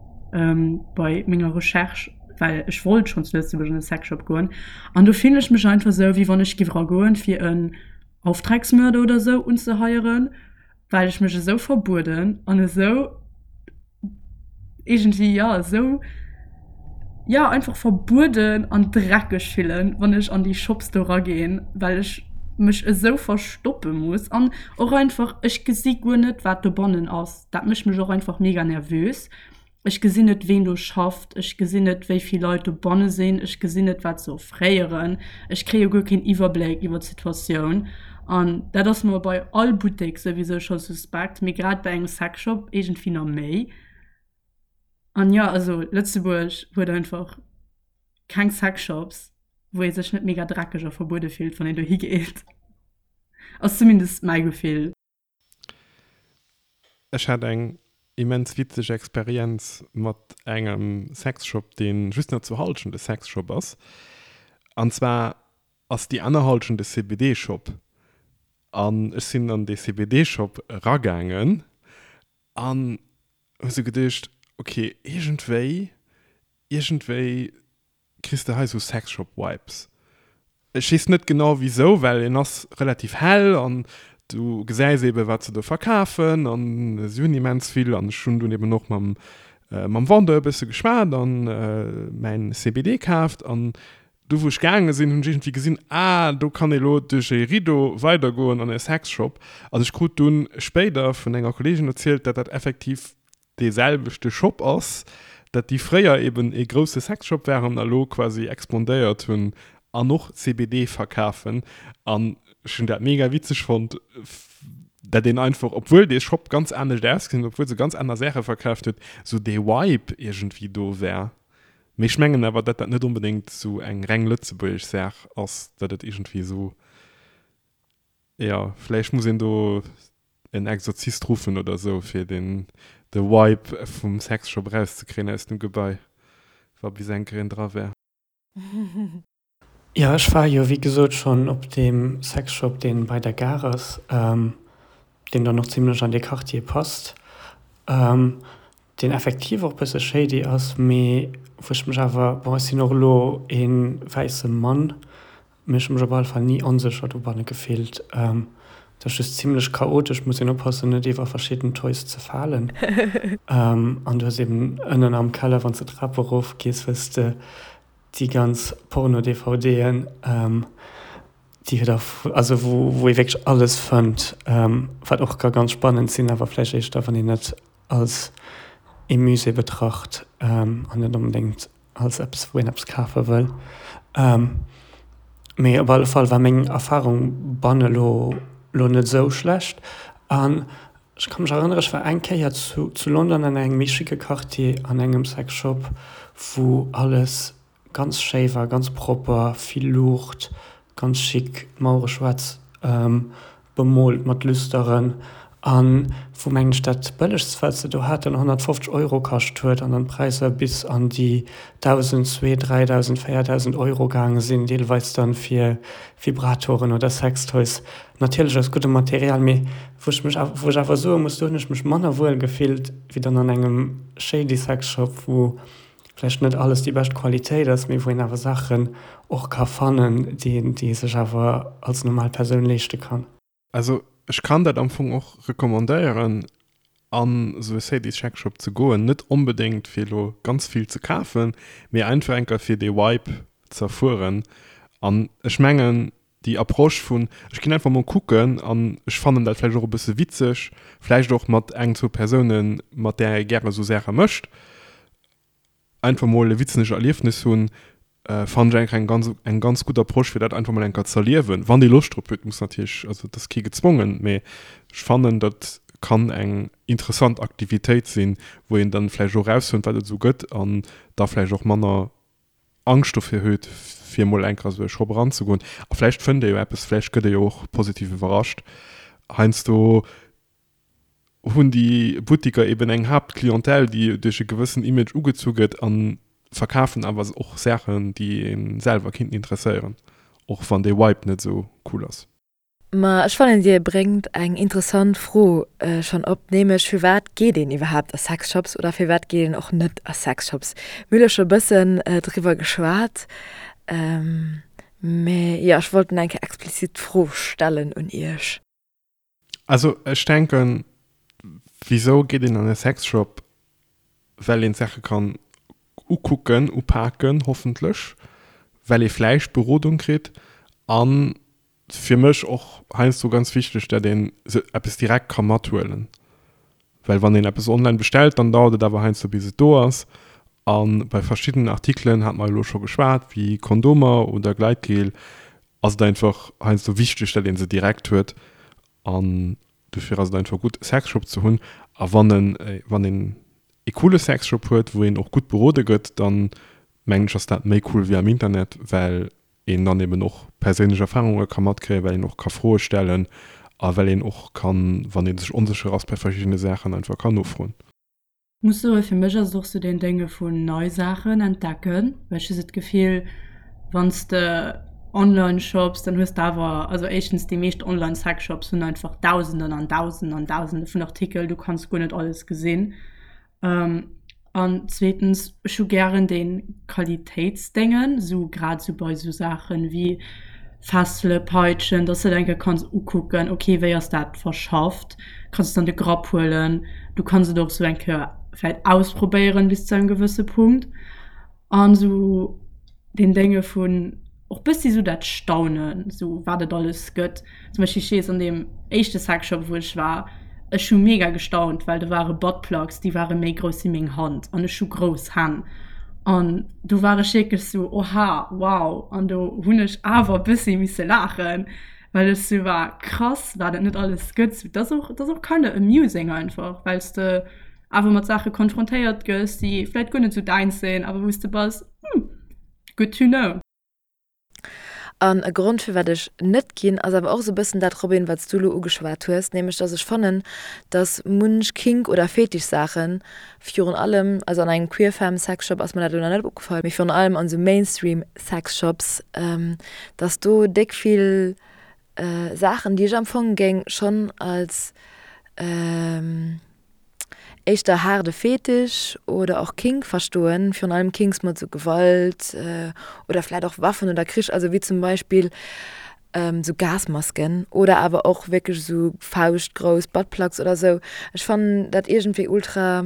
bei menger Recherche, well ech wollt schonn zu Lëtzebuerg an e Sexshop goen an do fillen ech mech einfach esou, wéi wann ech giff eragoen, fir en Auftragsmörder oder esou unzeheieren, well ech mech esou verbueden an esou. Iergendwéi, jo, esou, jo, einfach verbueden an dreckeg fillen, wann ech an déi Shops do raginn, well ech mech esou verstoppe muss an och einfach, ech gesi guer net, wat dobannen ass. Dat mécht mech och einfach mega nervös. Ech gesinn net, ween do schafft, ech gesinn net, wéi vill Leit dobanne sinn, ech gesinn net, wat se offréieren. Ech kréie guer keen Iwwerbléck iwwer d'Situatioun. An dat ass mer bei all Buttek souwisou scho suspekt, mee grad bei engem Sexshop iergendwéi nach méi. An jo, also Lëtzebuerg huet einfach keng Sexshops, wou ee sech net mega dreckeg a verbuede fillt, wann een dohi geet. Ass zumindest mäi Gefill. Ech hat eng immens witzeg Experienz mat engem Sexshop, deen just nach zur Halschent e Sexshop ass. An zwar ass déi aner Halschent e CBD-Shop. An ech sinn an dee CBD-Shop eragaangen an hu sou geduecht, ok, iergendwéi, iergendwéi kriss de hei sou Sexshop Vibes. Ech weess net genau wisou, well en ass relativ hell an Du gesäis eben, wat se do verkafen an si hunn immens vill an ech hunn dunn eben och mam mam Vendeur e bësse geschwat an mäin CBD kaaft an do wou ech gaange sinn, hunn ech iergendwéi gesinn, ah do kann ee lo duerch e Rideau weidergoen an e Sexshop an ech krut dunn spéider vun enger Kolleegin erzielt, dat dat effektiv dee selwechte Shop ass, dat déi fréier eben ee grousse Sexshop waren a lo quasi expandéiert hunn an och CBD verkafen. An ech hunn dat mega witzeg fonnt, dat een einfach, obwuel dee Shop ganz anescht ausgesinn huet, obwuel se ganz aner Saache verkaaft huet, sou dee Vibe iergendwéi do war. Mee ech mengen awer, dat dat net onbedéngt sou eng reng lëtzebuergesch Saach ass, dat et iergendwéi sou, jo, vläicht muss een do en Exorzist ruffen oder sou fir den de Vibe vum Sexshop erauszekréien aus dem Gebai, wa bis eng Kéier een dra wär. Jo, ech war jo wéi gesot schonn op deem Sexshop deen bei der Gare ass, deen dann och zimlech an dee Quartier passt, deen effektiv och bësse shady ass, mee wou ech mech awer, bon ech sinn och elo ee wäisse Mann, Mee ech hu mech op alle Fall ni onsécher dobanne gefillt. Et ass just zimlech chaotesch, muss een oppassen net iwwer verschidden Toys ze falen. An du hues eben ënnen am Keller, wann s de d'Trap erof gees, hues de déi ganz Porno-DVDen, déi huet a, also wou wou ee wierklech alles fënnt, wat och ka ganz spannend sinn, awer vläicht éischter wann een et als ee Musée betracht an net onbedéngt als eppes wou een eppes kafe wëll. Mee op alle Fall war meng Erfarung banne lo lo net esou schlecht. An ech ka mech erënnere ech war eng Kéier zu zu London an engem méi schicke Quartier an engem Sexshop wou alles ganz schéi war, ganz propper, vill Luucht, ganz chic, d'Mauere schwaarz bemoolt mat Lüsteren an wou mengen ech dat bëllegst wat se do haten 150 Euro kascht huet an dann d'Präisser bis an déi 1.000, 2, 3.000, 4.000 Euro gaange sinn, deelweis dann fir Vibratoren oder Sextoys, natierlech aus guddem Material, mee wou ech mech wou ech awer soe muss, do hunn ech mech manner wuel gefillt wéi dann an engem shady Sexshop, wou vläicht net alles déi bescht Qualitéit ass, mee wou een awer Saachen och ka fannen, déi een, déi ee sech awer als normal Persoun leeschte kann. Also ech kann dat am Fong och recommandéieren an esou e Sadies Shack Shop ze goen, net onbedéngt fir elo ganz vill ze kafen, mee einfach enker fir dee Vibe ze erfueren an ech mengen déi Approche vun ech ginn einfach mol kucken an ech fannen dat vläicht och e bësse witzeg, vläicht och mat eng, zwou Persounen, mat där ee gäre sou Saache mécht, einfach mol e witzeg Erliefnis hunn, fannen ech eigentlech eng ganz, eng ganz gutt Approche, fir dat einfach mol eng Kéier ze erliewen, wann ee Loscht drop huet. Muss natierlech, also et ass kee gezwongen, mee ech fannen, dat kann eng interessant Aktivitéit sinn, wou een dann vläicht och erausfënnt, wat et esou gëtt an da vläicht och manner Angscht dofir huet, fir emol eng Kéier esou e Shop eranzegoen. A vläicht fënnt ee jo eppes, vläicht gëtt ee jo och positiv iwwerrascht. Heiansdo hunn déi Buttiker eben eng Haaptclientèle, déi duerch e gewëssen Image ugezu gëtt a verkafen awer och Saachen, déi ee selwer kinnten interesséieren, och wann dee Vibe net esou cool ass. Ma ech fannen dir bréngt eng interessant Fro schonn op, nämlech firwat geet een iwwerhaapt a Sexshops oder firwat geet een och net a Sexshops? Mir hu lo scho bëssen driwwer geschwat, mä jo ech wollt eng Kéier explizit d'Fro stellen un iech. Also ech denken, wisou geet een an e Sexshop? Well een d'Saache kann ukucken, upaken, hoffentlech, well ee vläicht Berodung kritt an fir mech och heiansdo ganz wichteg, dat een se eppes direkt ka mathuelen, well wann een eppes online bestellt, dann dauert et awer heiansdo bis et do ass a bei verschiddenen Artikelen, hate mer elo scho geschwat, wéi Kondomer oder Gleitgel, ass et einfach heiansdo wichteg, dat een se direkt huet an dofir ass et einfach gutt e Sexshop ze hunn a wann en wann een e coole Sexshop huet, wou een och gutt berode gëtt, dann mengen ech ass dat méi cool wéi am Internet, well een dann eben och perséinlech Erfarunge ka matkréien, well een och ka Froe stellen a well een och kann, wann ee sech onsécher ass bei verschiddene Saachen, einfach kann nofroen. Muss soen, fir mech ass et och sou deen Dénge vun nei Saachen entdecken, well ech hu sou d'Gefill, wann s de online shops, dann hues de awer, also éischtens déi meescht online Sexshops hunn einfach Dausenden an Dausenden an Dausende vun Artikel, du kanns guer net alles gesinn. An zweetens, ech hu gären dee Qualitéitsdéngen, esou grad esou bei esou Saachen wéi. Fessele, Peitschen, dass de et eng Kéier kanns ukucken, ok wéi ass dat verschafft, kanns et an de Grapp huelen, du kanns et och sou eng Kéier vläit ausprobéieren bis zu engem gewësse Punkt an sou deen Dénge vun och bëssi sou dat Staunen, sou wat et alles gëtt. Zum Beispill ech weess an deem éischte Sexshop wou ech war, ech hu mega gestaunt, well do ware Buttplugs déi ware méi grouss wéi meng Hand an ech hu grouss Hänn an do war ech wierklech sou oha wow an do hunn ech awer bëssi misse laachen, well ech sou war krass wat et net alles gëtt. Sou dat ass och dat ass och kinda amusing einfach, well s de awer mat Saache konfrontéiert gëss déi vläit guer net sou däins sinn, awer wou s de bass hm good to know. An e Grond firwat ech net ginn, ass awer och esou e bëssen dat, Robin, wat s du elo ugeschwat hues, nämlech dass ech fannen, dass munch Kink oder Fetischsaachen, virun allem, also an engem queer-femme Sexshop ass mer dat elo nach net opgefall, mee virun allem an esou Mainstream Sexshops, dass do déck vill Saachen, déi ech am Fong géing schonn als éischter haarde Fetisch oder och Kink verstoen, virun allem Kinks mat sou Gewalt oder vläit och Waffen oder Krich, also wéi zum Beispill sou Gasmasken oder awer och wierklech sou fauschtgrouss Buttplugs oder sou. Ech fannen dat iergendwéi ultra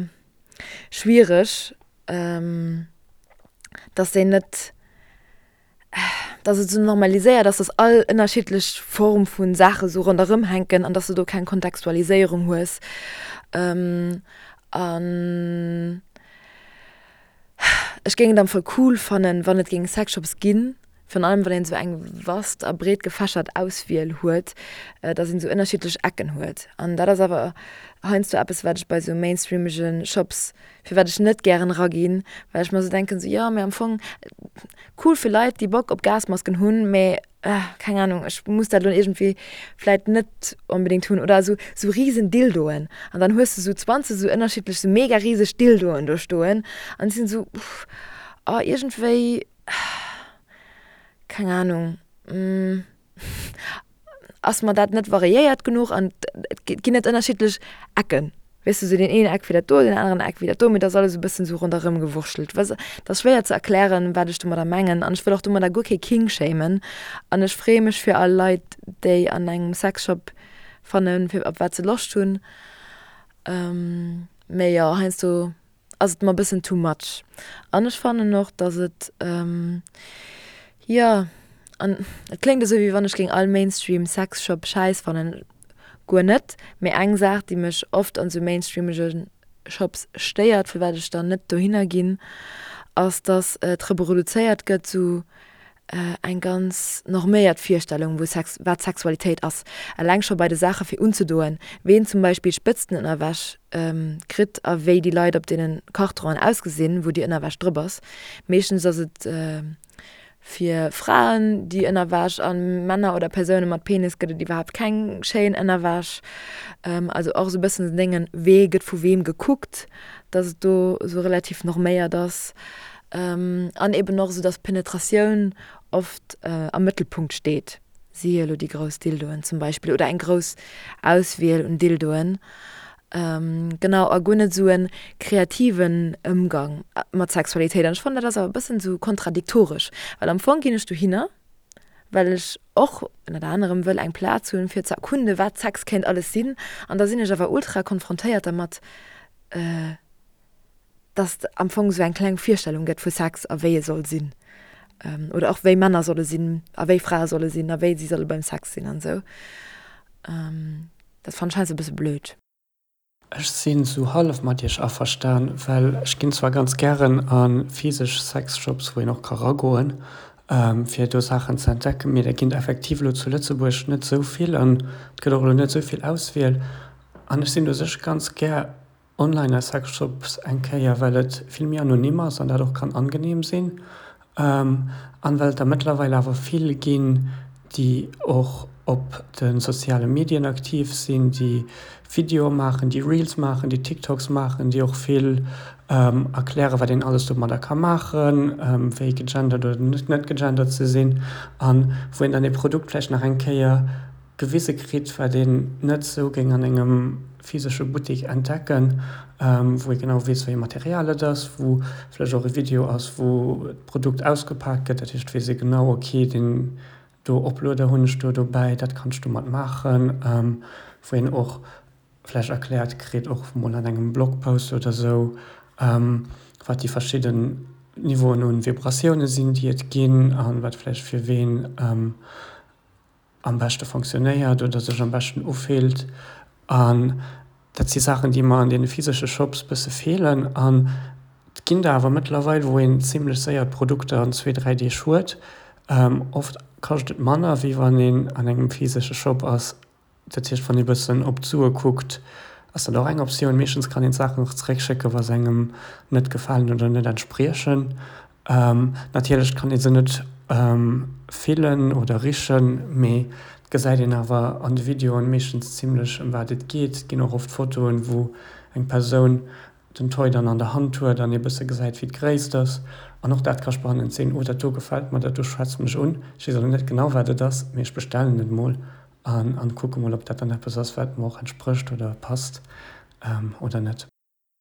schwiereg, dass déi net dass et esou normaliséiert ass, dass all ënnerschiddlech Form vu Saache sou ronderëm hänken an dass du do keng Kontextualiséierung hues. An ech géing et am Fall cool fannen, wann et géing Sexshops ginn, virun allem wann een esou eng vast a breet gefächert Auswiel huet, dass een esou ënnerschiddlech Ecken huet. An dat ass awer heiansdo eppes, wat ech bei esou mainstreamege Shops firwat ech net gären eraginn, well ech mer esou denken, esou jo, mee am Fong cool fir Leit, déi Bock op Gasmasken hunn, mee keng Ahnung, ech muss dat elo iergendwéi vläit net onbedéngt hunn. Oder esou esou riesen Dildoen an dann hues de esou 20 esou ënnerschiddlech esou mega riseg Dildoen do stoen an ech sinn esou, oh iergendwéi, keng Ahnung. Ass mer dat net variéiert genuch an et ginn net ënnerschiddlech Ecken, weess de, sou deen een Eck wéi dat do, deen aneren Eck wéi dat do, mee et ass alles e bëssen sou ronderëm gewurschtelt. Weess, et ass schwéier ze erklären, wat ech domadder mengen an ech wëll och domadder guer kee Kink shamen an ech freeë mech fir all Leit, déi an engem Sexshop fannen, fir op wat se Loscht hunn, mee jo, heiansdo ass et mer bëssen too much. An ech fannen och, dass et, jo, an et kléngt esou, wéi wann ech géing all Mainstream Sexshop schäiss fannen, guer net, mee eng Saach, déi mech oft an esou mainstreamege Shops stéiert, firwat ech dann net dohinner ginn, ass, dass et reproduzéiert gëtt, sou eng ganz norméiert Virstellung wou Sex, wat Sexualitéit ass. Eleng scho bei de Saache fir unzedoen, ween zum Beispill Spëtztenënnerwäsch kritt a wéi déi Leit op deene Kartronen ausgesinn, wou déi Ënnerwäsch drop ass. Meeschtens ass et fir Fraen déi Ënnerwäsch a Männer oder Persoune mat Penis gëtt et iwwerhaapt keng schéin Ënnerwäsch. Also och esou e bëssen den Déngen, wee gëtt vu weem gekuckt, datt et do esou relativ norméiert ass. An eben och esou, dass Penetratioun oft am Mëttelpunkt steet, siehe elo déi grouss Dildoen zum Beispill oder eng grouss Auswiel un Dildoen. Genau, a guer net esou e kreativen Ëmgang mat Sexualitéit. An ech fannen, dat ass awer e bëssen esou kontradiktoresch, well am Fong ginn ech dohinner, well ech och ënnert anerem wëll eng Plaz hunn, fir ze erkunden, wat Sex kéint alles sinn. An da sinn ech awer ultra konfrontéiert dermat, dass et am Fong esou eng kleng Virstellung gëtt vu Sex a wéi e soll sinn. Oder och wéi Männer solle sinn a wéi Frae solle sinn a wéi si solle beim Sex sinn an esou. Dat fannen ech heiansdo e bësse blöd. Ech sinn sou hallef mat iech averstan, well ech ginn zwar ganz gären a physesch Sexshops, wou een och ka ragoen, fir do Saachen ze entdecken, mee der ginn effektiv elo zu Lëtzebuerg net sou vill an et gëtt och elo net sou vill Auswiel. An ech sinn u sech ganz gär Online a Sexshops eng Kéier, well et vill méi anonym ass an dat och kann angenehm sinn. An well et der mëttlerweil awer vill ginn, déi och op de soziale Medien aktiv sinn, déi Videoe maachen, déi Reels maachen, déi TikToks maachen, déi och vill erklären, wat een alles domadder ka maachen, wéi gegendert oder net gegendert ze sinn, an wou een dann ee Produkt vläicht nach eng Kéier gewise kritt, wat een net esou géing an engem physesche Buttek entdecken, wou ee genau weess, wéi ee Material et ass, wou vläicht och e Video ass, wou d'Produkt ausgepak gëtt. Dat heescht, et weess ee genau, ok, deen. Do Oplueder hunn ech do dobäi, dat kanns du mat maachen, wou een och vläicht erkläert kritt, och mol an engem Blogpost oder sou, wat déi verschidden Niveauen un Vibratioune sinn, déi et ginn a wat vläicht fir ween am beschte fonctionnéiert oder sech am beschten ufillt. An dat si Saachen, déi mer an deene physesche Shops bësse feelen. An et ginn der awer mëttlerweil, wou een zimlech séier d'Produkter an zwee, dräi Deeg huet. Oft kascht et manner, wéi wann een an engem physesche Shop ass. Dat heescht, wann ee bëssen op d'Sue kuckt, ass dat och eng Optioun. Meeschtens kann een d'Saachen och zeréckschécken, wa se engem net gefalen oder net entspriechen. Natierlech kann ee se net fillen oder richen, mee et gesäit een awer an de Videoen meeschtens zimlech ëm wat et geet. Et ginn och oft Fotoen, wou eng Persoun den Toy dann an der Hand huet an ee bësse gesäit wéi d'Gréisst ass. An och dat ka spannend sinn, oh dat do gefält mer, dat do schwätzt mech un, ech weess awer net genau wat et ass, mee ech bestellen et mol an an kucke mol ob dat dann eppes ass wat mer och entsprécht oder passt oder net.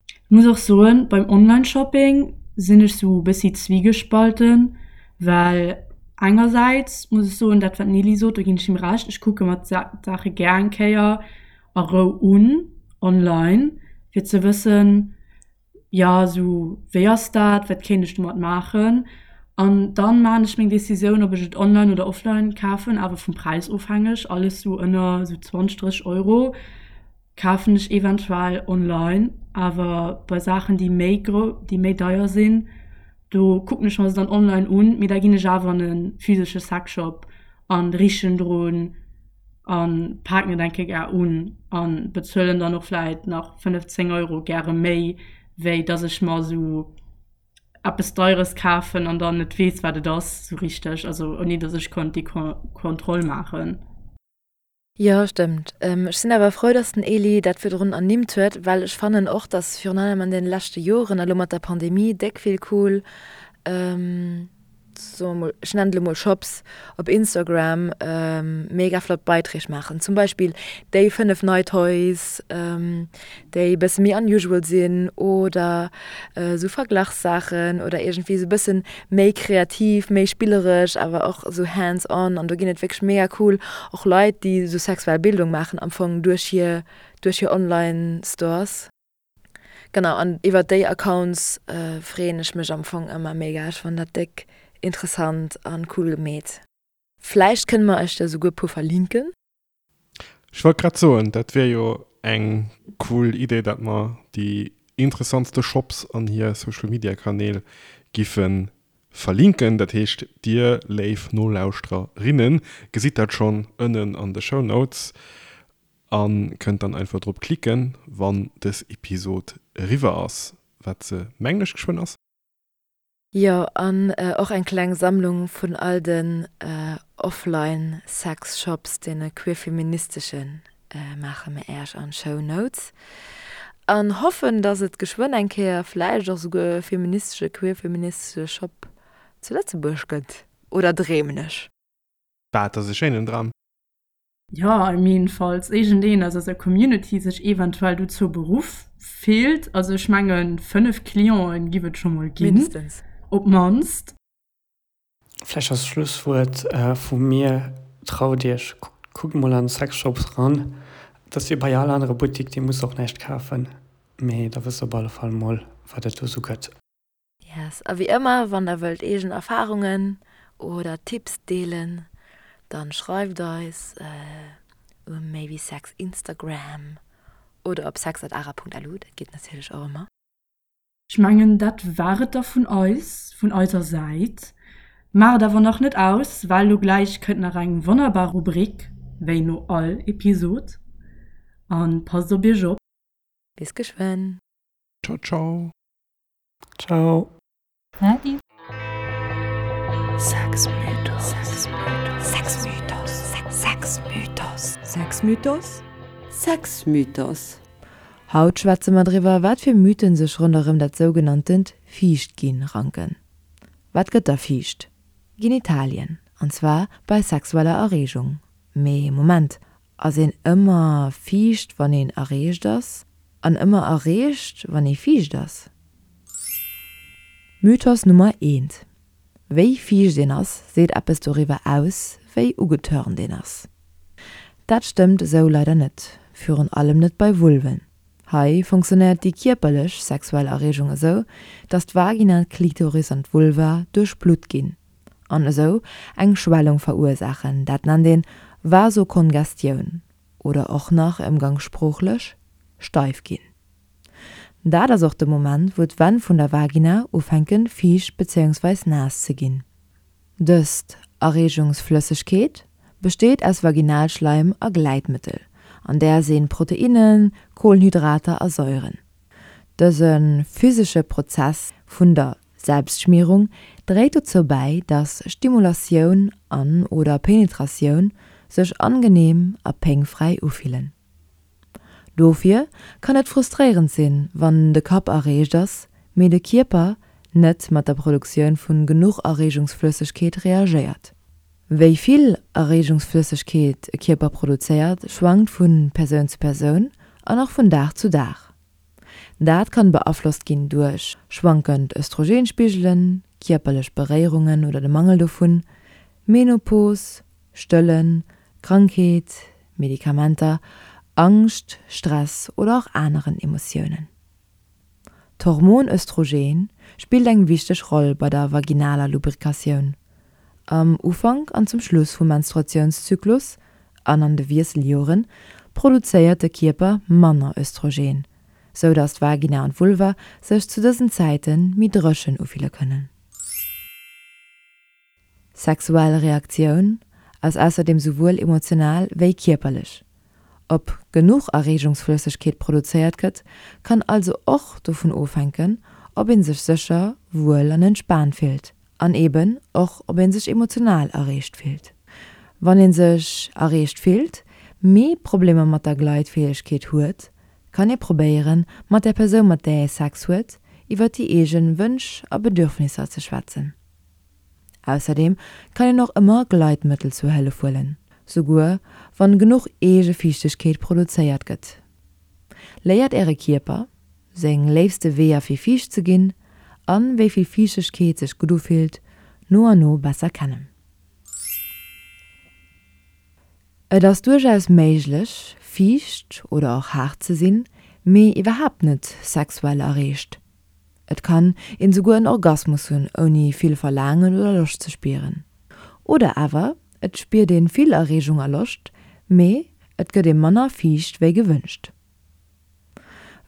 Ech muss och soen, beim Online-Shopping sinn ech sou e bëssi zwiegespalten, well engersäits muss ech soen, dat wat d'Nelly sot, do ginn ech him Recht, ech kucke mer d'Saache gär eng Kéier a Rou un online, fir ze wëssen, jo sou wéi ass dat, wat kéint ech domat maachen an dann maan ech meng Decisioun ob ech et online oder offline kafen, awer vum Präis ofhängeg, alles sou ënner sou 20, 30 Euro kafen ech eventuell online, awer bei Saachen déi méi gro déi méi deier sinn, do kucken ech mer se dann online un, mee da ginn ech awer an e physesche Sexshop an richen drun an paken et eng Kéier gär un an bezuelen dann och vläit nach 5, 10 Euro gäre méi, wéi dass ech mer esou eppes Deieres kafen an dann net weess, wat et ass esou richteg, also ouni dass ech konnt déi Kontroll maachen. Jo, stëmmt. Ech sinn awer frou, dass den Elie dat virdrun ernimmt huet, well ech fannen och, dass virun allem an deene leschte Joren a lo mat der Pandemie déck vill cool, soe mer mol, ech nennen et elo mol Shops, op Instagram mega flott Beiträg maachen. Zum Beispill déi 5 nei Toys, déi e bësse méi unusual sinn oder esou Verglachssaachen oder iergendwéi esou e bëssen méi kreativ, méi spilleresch, awer och esou hands on an do ginn et wierklech mega cool och Leit, déi esou sexuell Bildung maachen am Fong duerch hir duerch hir Online Stores. Genau an iwwert déi Accounts freeën ech mech am Fong ëmmer mega. Ech fannen dat déck interessant an cool gemeet. Vläicht kënne mer iech der souguer puer verlinken. Ech wollt grad soen, dat wier jo eng cool Idee, dat mer déi interessantste Shops an hir Social Media Kanäl giffe verlinken. Dat heescht, dir léif Nolauschtererinnen gesitt dat schonn ënnen an de Show Notes a kënnt dann einfach drop klicken, wann dës Episod eriwwer ass, wat se mengen ech geschwënn ass. Jo, an och eng kleng Sammlung vun all den offline Sex Shops, deene queerfeministeschen, maache mir Äerch an d'Show Notes. An hoffen, dass et geschwënn eng Kéier vläicht och souguer e feministesche, queerfeministesche Shop zu Lëtzebuerg gëtt. Oder dreemen ech? Bah, et ass e schéinen Dram. Jo, I mean, falls iergendeen aus eiser Community sech eventuell dozou beruff fillt, also ech mengen 5 Clienten giff et scho mol ginn, Mindestens. op d'mannst. Vläicht als Schlusswuert vu mir, Traut iech, kuckt mol an Sexshops ran. Et ass wéi bei all anere Buttik, dir musst och näischt kafen, mee da wësst der op alle Fall mol, wat et do sou gëtt. Yes, a wéi ëmmer, wann der wëllt eegen Erfahrungen oder Tipps deelen, dann schreift eis um maybesex Instagram oder op sex@ara.lu, dat geet natierlech och ëmmer. Ech mengen dat war et da vun eis, vun eiser Säit. Maacht awer nach net aus, well lo gläich kënnt nach eng wonnerbar Rubrik, wéi no all Episod. An passt op iech op. Bis geschwënn. Ciao ciao. Ciao. Adi. Sexmythos. Sexmythos. Sexmythos. Sexmythos. Sexmythos. Haut schwätze mer driwwer, wat fir Mythen sech ronderëm dat sougenanntent Fiichtginn ranken. Wat gëtt da fiicht? Genitalien, an zwar bei sexueller Erreegung. Mee Moment, ass een ëmmer fiicht wann een erreegt ass? An ëmmer erreegt wann ee fiicht ass? Mythos Nummer eent. Wéi fiicht een ass, seet eppes doriwwer aus, wéi ugetörnt een ass. Dat stëmmt esou leider net, virun allem net bei Vulven. Hei funktionéiert déi kierperlech sexuell Erreegung esou, dass d'Vagina, d'Klitoris an d'Vulva duerchblutt ginn an esou eng Schwellung verursaachen, dat nennt een Vasokongestioun oder och nach ëmgangssproochlech steif ginn. Dat ass och de Moment wou d'Wänn vun der Vagina ufänken fiicht bezéiungsweis naass ze ginn. Dëst Erreegungsflëssegkeet besteet aus Vaginalschleim a Gleitmëttel, an där sinn Proteinnen, Kohlenhydrater a Säuren. Dëse physesche Prozess vun der Selbstschmierung dréit dozou bäi, dass Stimulatioun an oder Penetratioun sech angenehm a péngfräi ufillen. Dofir kann et frustréierend sinn, wann de Kapp erreegt ass, mee de Kierper net mat der Produktioun vun genuch Erreegungsflëssegkeet reagéiert. Wéi vill Erreegungsflëssegkeet e Kierper produzéiert, schwankt vu Persoun zu Persoun an och vun Dag zu Dag. Dat kann beaflosst ginn duerch schwankend Östrogenspigelen, kierperlech Beréierungen oder de Mangel dovun, Menopos, Stëllen, Krankheet, Medikamenter, Angscht, Stress oder och aneren Emotiounen. D'Hormon Östrogen spillt eng wichteg Roll bei der vaginaler Lubrikatioun. Am Ufank an zum Schluss vum Menstruatiounszyklus an an de Wiesseljoren produzéiert de Kierper manner Östrogen, sou dass d'Vagina an d'Vulva sech zu dësen Zäite méi dréchen ufille kënnen. Sexuell Reaktioun ass ausserdeem souwuel emotional wéi kierperlech. Ob genuch Erreegungsflëssegkeet produzéiert gëtt, kann also och dovun ofhänken, ob ee sech sécher, wuel an entspaant fillt an eben och ob ee sech emotional erreegt fillt. Wann ee sech erreegt fillt, mee Problemer mat der Gleitfäegkeet huet, kann ee probéieren, mat der Persoun mat där ee Sex huet, iwwer déi eegen Wënsch a Bedürfnisser ze schwätzen. Ausserdeem kann een och ëmmer Gleitmëttel zur Hëllef huelen, souguer wann genuch eege Fiichtegkeet produzéiert gëtt. Léiert äre Kierper, seng léifste Weeër fir fiicht ze ginn an wéi vill Fiichtegkeet sech gutt ufillt, no an no besser kennen. Et ass duerchaus méiglech, fiicht oder och haart ze sinn, mee iwwerhaapt net sexuell erreegt. Et kann een souguer en Orgasmus hunn ouni vill Verlaangen oder Loscht ze spieren. Oder awer et spiert een vill Erreegung a Loscht, mee et gëtt ee manner fiicht wéi gewënscht.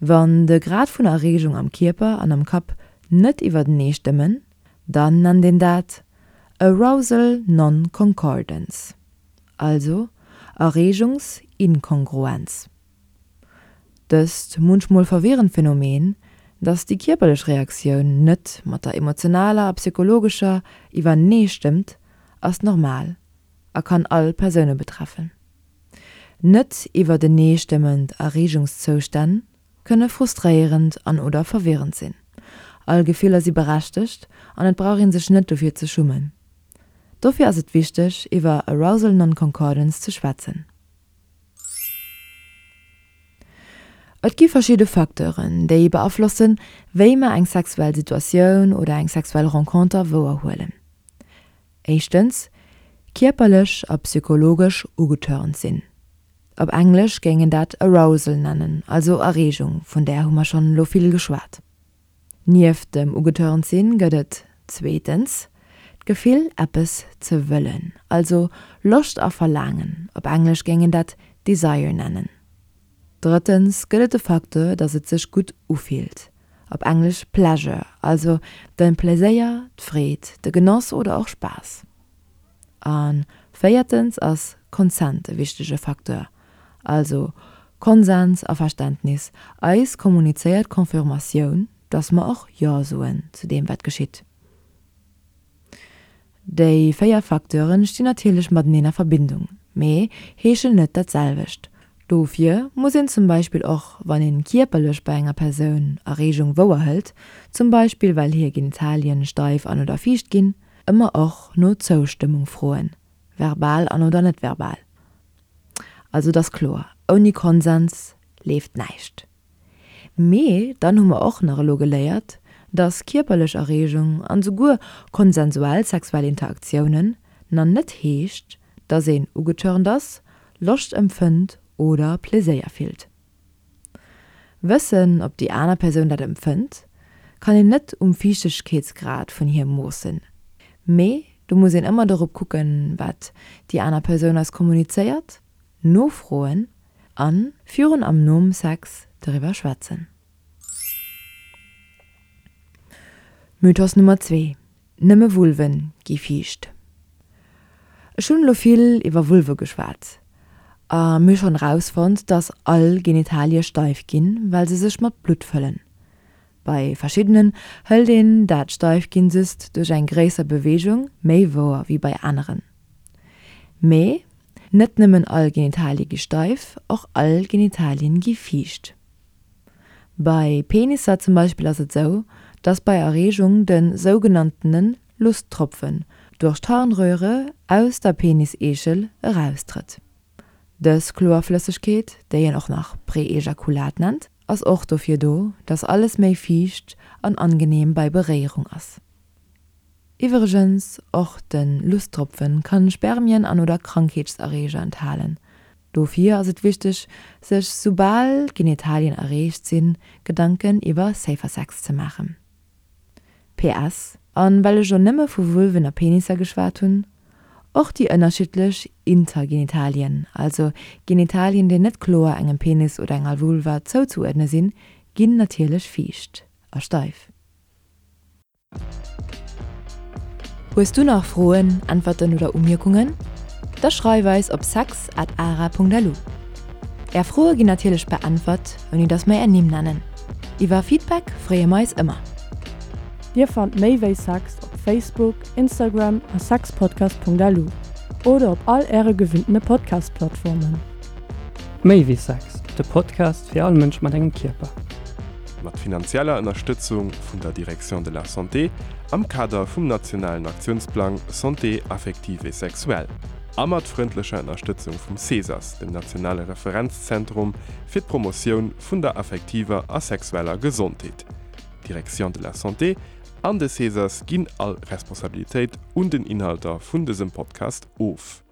Wann de Grad vun Erreegung am Kierper an am Kapp net iwwertenee stëmmen, dann nennt een dat Arousal Non-Concordance, also Erreegungsinkongruenz. Dëst munchmol verwirrend Phänomen, dass déi kierperlech Reaktioun net mat der emotionaler a psychologescher iwwerneestëmmt, ass normal a kann all Persoune betreffen. Net iwwerteneestëmmend Erreegungszoustänn kënne frustréierend an oder verwirrend sinn. All Gefiller si berechtegt an et brauch ee sech net dofir ze schummen. Dofir ass et wichteg, iwwer Arousal Non-Concordance ze schwätzen. Et gi verschidde Facteuren, déi beaflossen, wéi mer eng sexuell Situatioun oder eng sexuell Renconter wouerhuelen. Éischtens, kierperlech a psychologesch ugetörnt sinn. Op Englesch géing een dat Arousal nennen, also Erreegung, vun där hu mer schonn elo vill geschwat. Nieft dem ugetörnt sinn gëtt et zweetens d'Gefill eppes ze wëllen, also Loscht a Verlaangen, op Englesch géing een dat Desire nennen. Drëttens gëtt et de Facteur, dass et sech gutt ufillt, op Englesch Pleasure, also de Pleséier, d'Freed, de Genoss oder och Spaass. A véiertens ass Consent e wichtege Facteur, also Konsens a Verständnis, eis kommunizéiert Confirmatioun, dass mer och Jo soen zu deem wat geschitt. Déi 4 Facteure stinn natierlech mateneen a Verbindung, mee heeschen net dat selwecht. Dofir muss een zum Beispill och wann een kierperlech bei enger Persoun Erreegung wouerhëlt, zum Beispill well hir Genitalien steif an oder fiicht ginn, ëmmer och no Zoustëmmung froen, verbal an oder net verbal. Also et ass kloer, ouni Konsens leeft näischt. Mee dann hu mer och nach elo geléiert, Dass kierperlech Erreegung an souguer konsensuell sexuell Interaktiounen na net heescht, dass een ugetörnt ass, Loscht empfënnt oder Pleséier fillt. Wëssen, ob déi aner Persoun dat empfënnt, kann een net um Fiichtegkeetsgrad vun hir moossen. Mee do muss een ëmmer dorop kucken, wat déi aner Persoun eis kommunizéiert, nofroen a virun am nom Sex doriwwer schwätzen. Mythos Nummer 2, Nëmme Vulven gi fiicht. Ech hunn elo vill iwwer Vulve geschwat a mir hu schonn erausfonnt, dass all Genitalie steif ginn, well se sech mat Blutt fëllen. Bei verschiddenen hëlt een dat Steifginn just duerch eng gréisser Beweegung méi wouer wéi bei aneren. Mee net nëmmen all Genitalie gi steif, och all Genitalien gi fiicht. Bei Penisser zum Beispill ass et sou, dass bei Erreegung de sougenanntene Lusttropfen duerch d'Harnröhre aus der Peniseechel eraustrëtt. Dës kloer Flëssegkeet, déi een och nach Preejakulat nennt, ass och dofir do, dass alles méi fiicht an angenehm bei Beréierung ass. Iwwregens, och de Lusttropfen kann Spermien an oder Krankheetserreeger enthalen. Dofir ass et wichteg, sech soubal d'Genitalien erreecht sinn, Gedanken iwwer Safer Sex ze maachen. PS. An well ech lo nëmme vu Vulven a Penisser geschwat hunn, och déi ënnerschiddlech Intergenitalien, also Genitalien déi net kloer engem Penis oder enger Vulva zouzeuerdne sinn, ginn natierlech fiicht a steif. Hues du nach Froen, Äntwerten oder Umierkungen? Da schreif eis op sex at ara.lu. Är Froe ginn natierlech beäntwert, ouni dass mer är Nimm nennen. Iwwer Feedback freeë mer eis ëmmer. Dir fannt méi wéi Sex op Facebook, Instagram a sexpodcast.lu oder op all äre gewinntene Podcast-Plattformen. Méi wéi Sex, de Podcast fir all Mënsch mat engem Kierper. Mat finanzieller Ënnerstëtzung vun der Direction de la Santé am Kader vum nationalen Aktiounsplang Santé affective et sexuelle a mat frëndlecher Ënnerstëtzung vum CESAS, dem nationale Referenzzentrum fir d'Promotioun vun der affektiver a sexueller Gesondheet. D'Direction de la Santé an de CESAS ginn all Responsabilitéit un den Inhalter vun dësem Podcast of.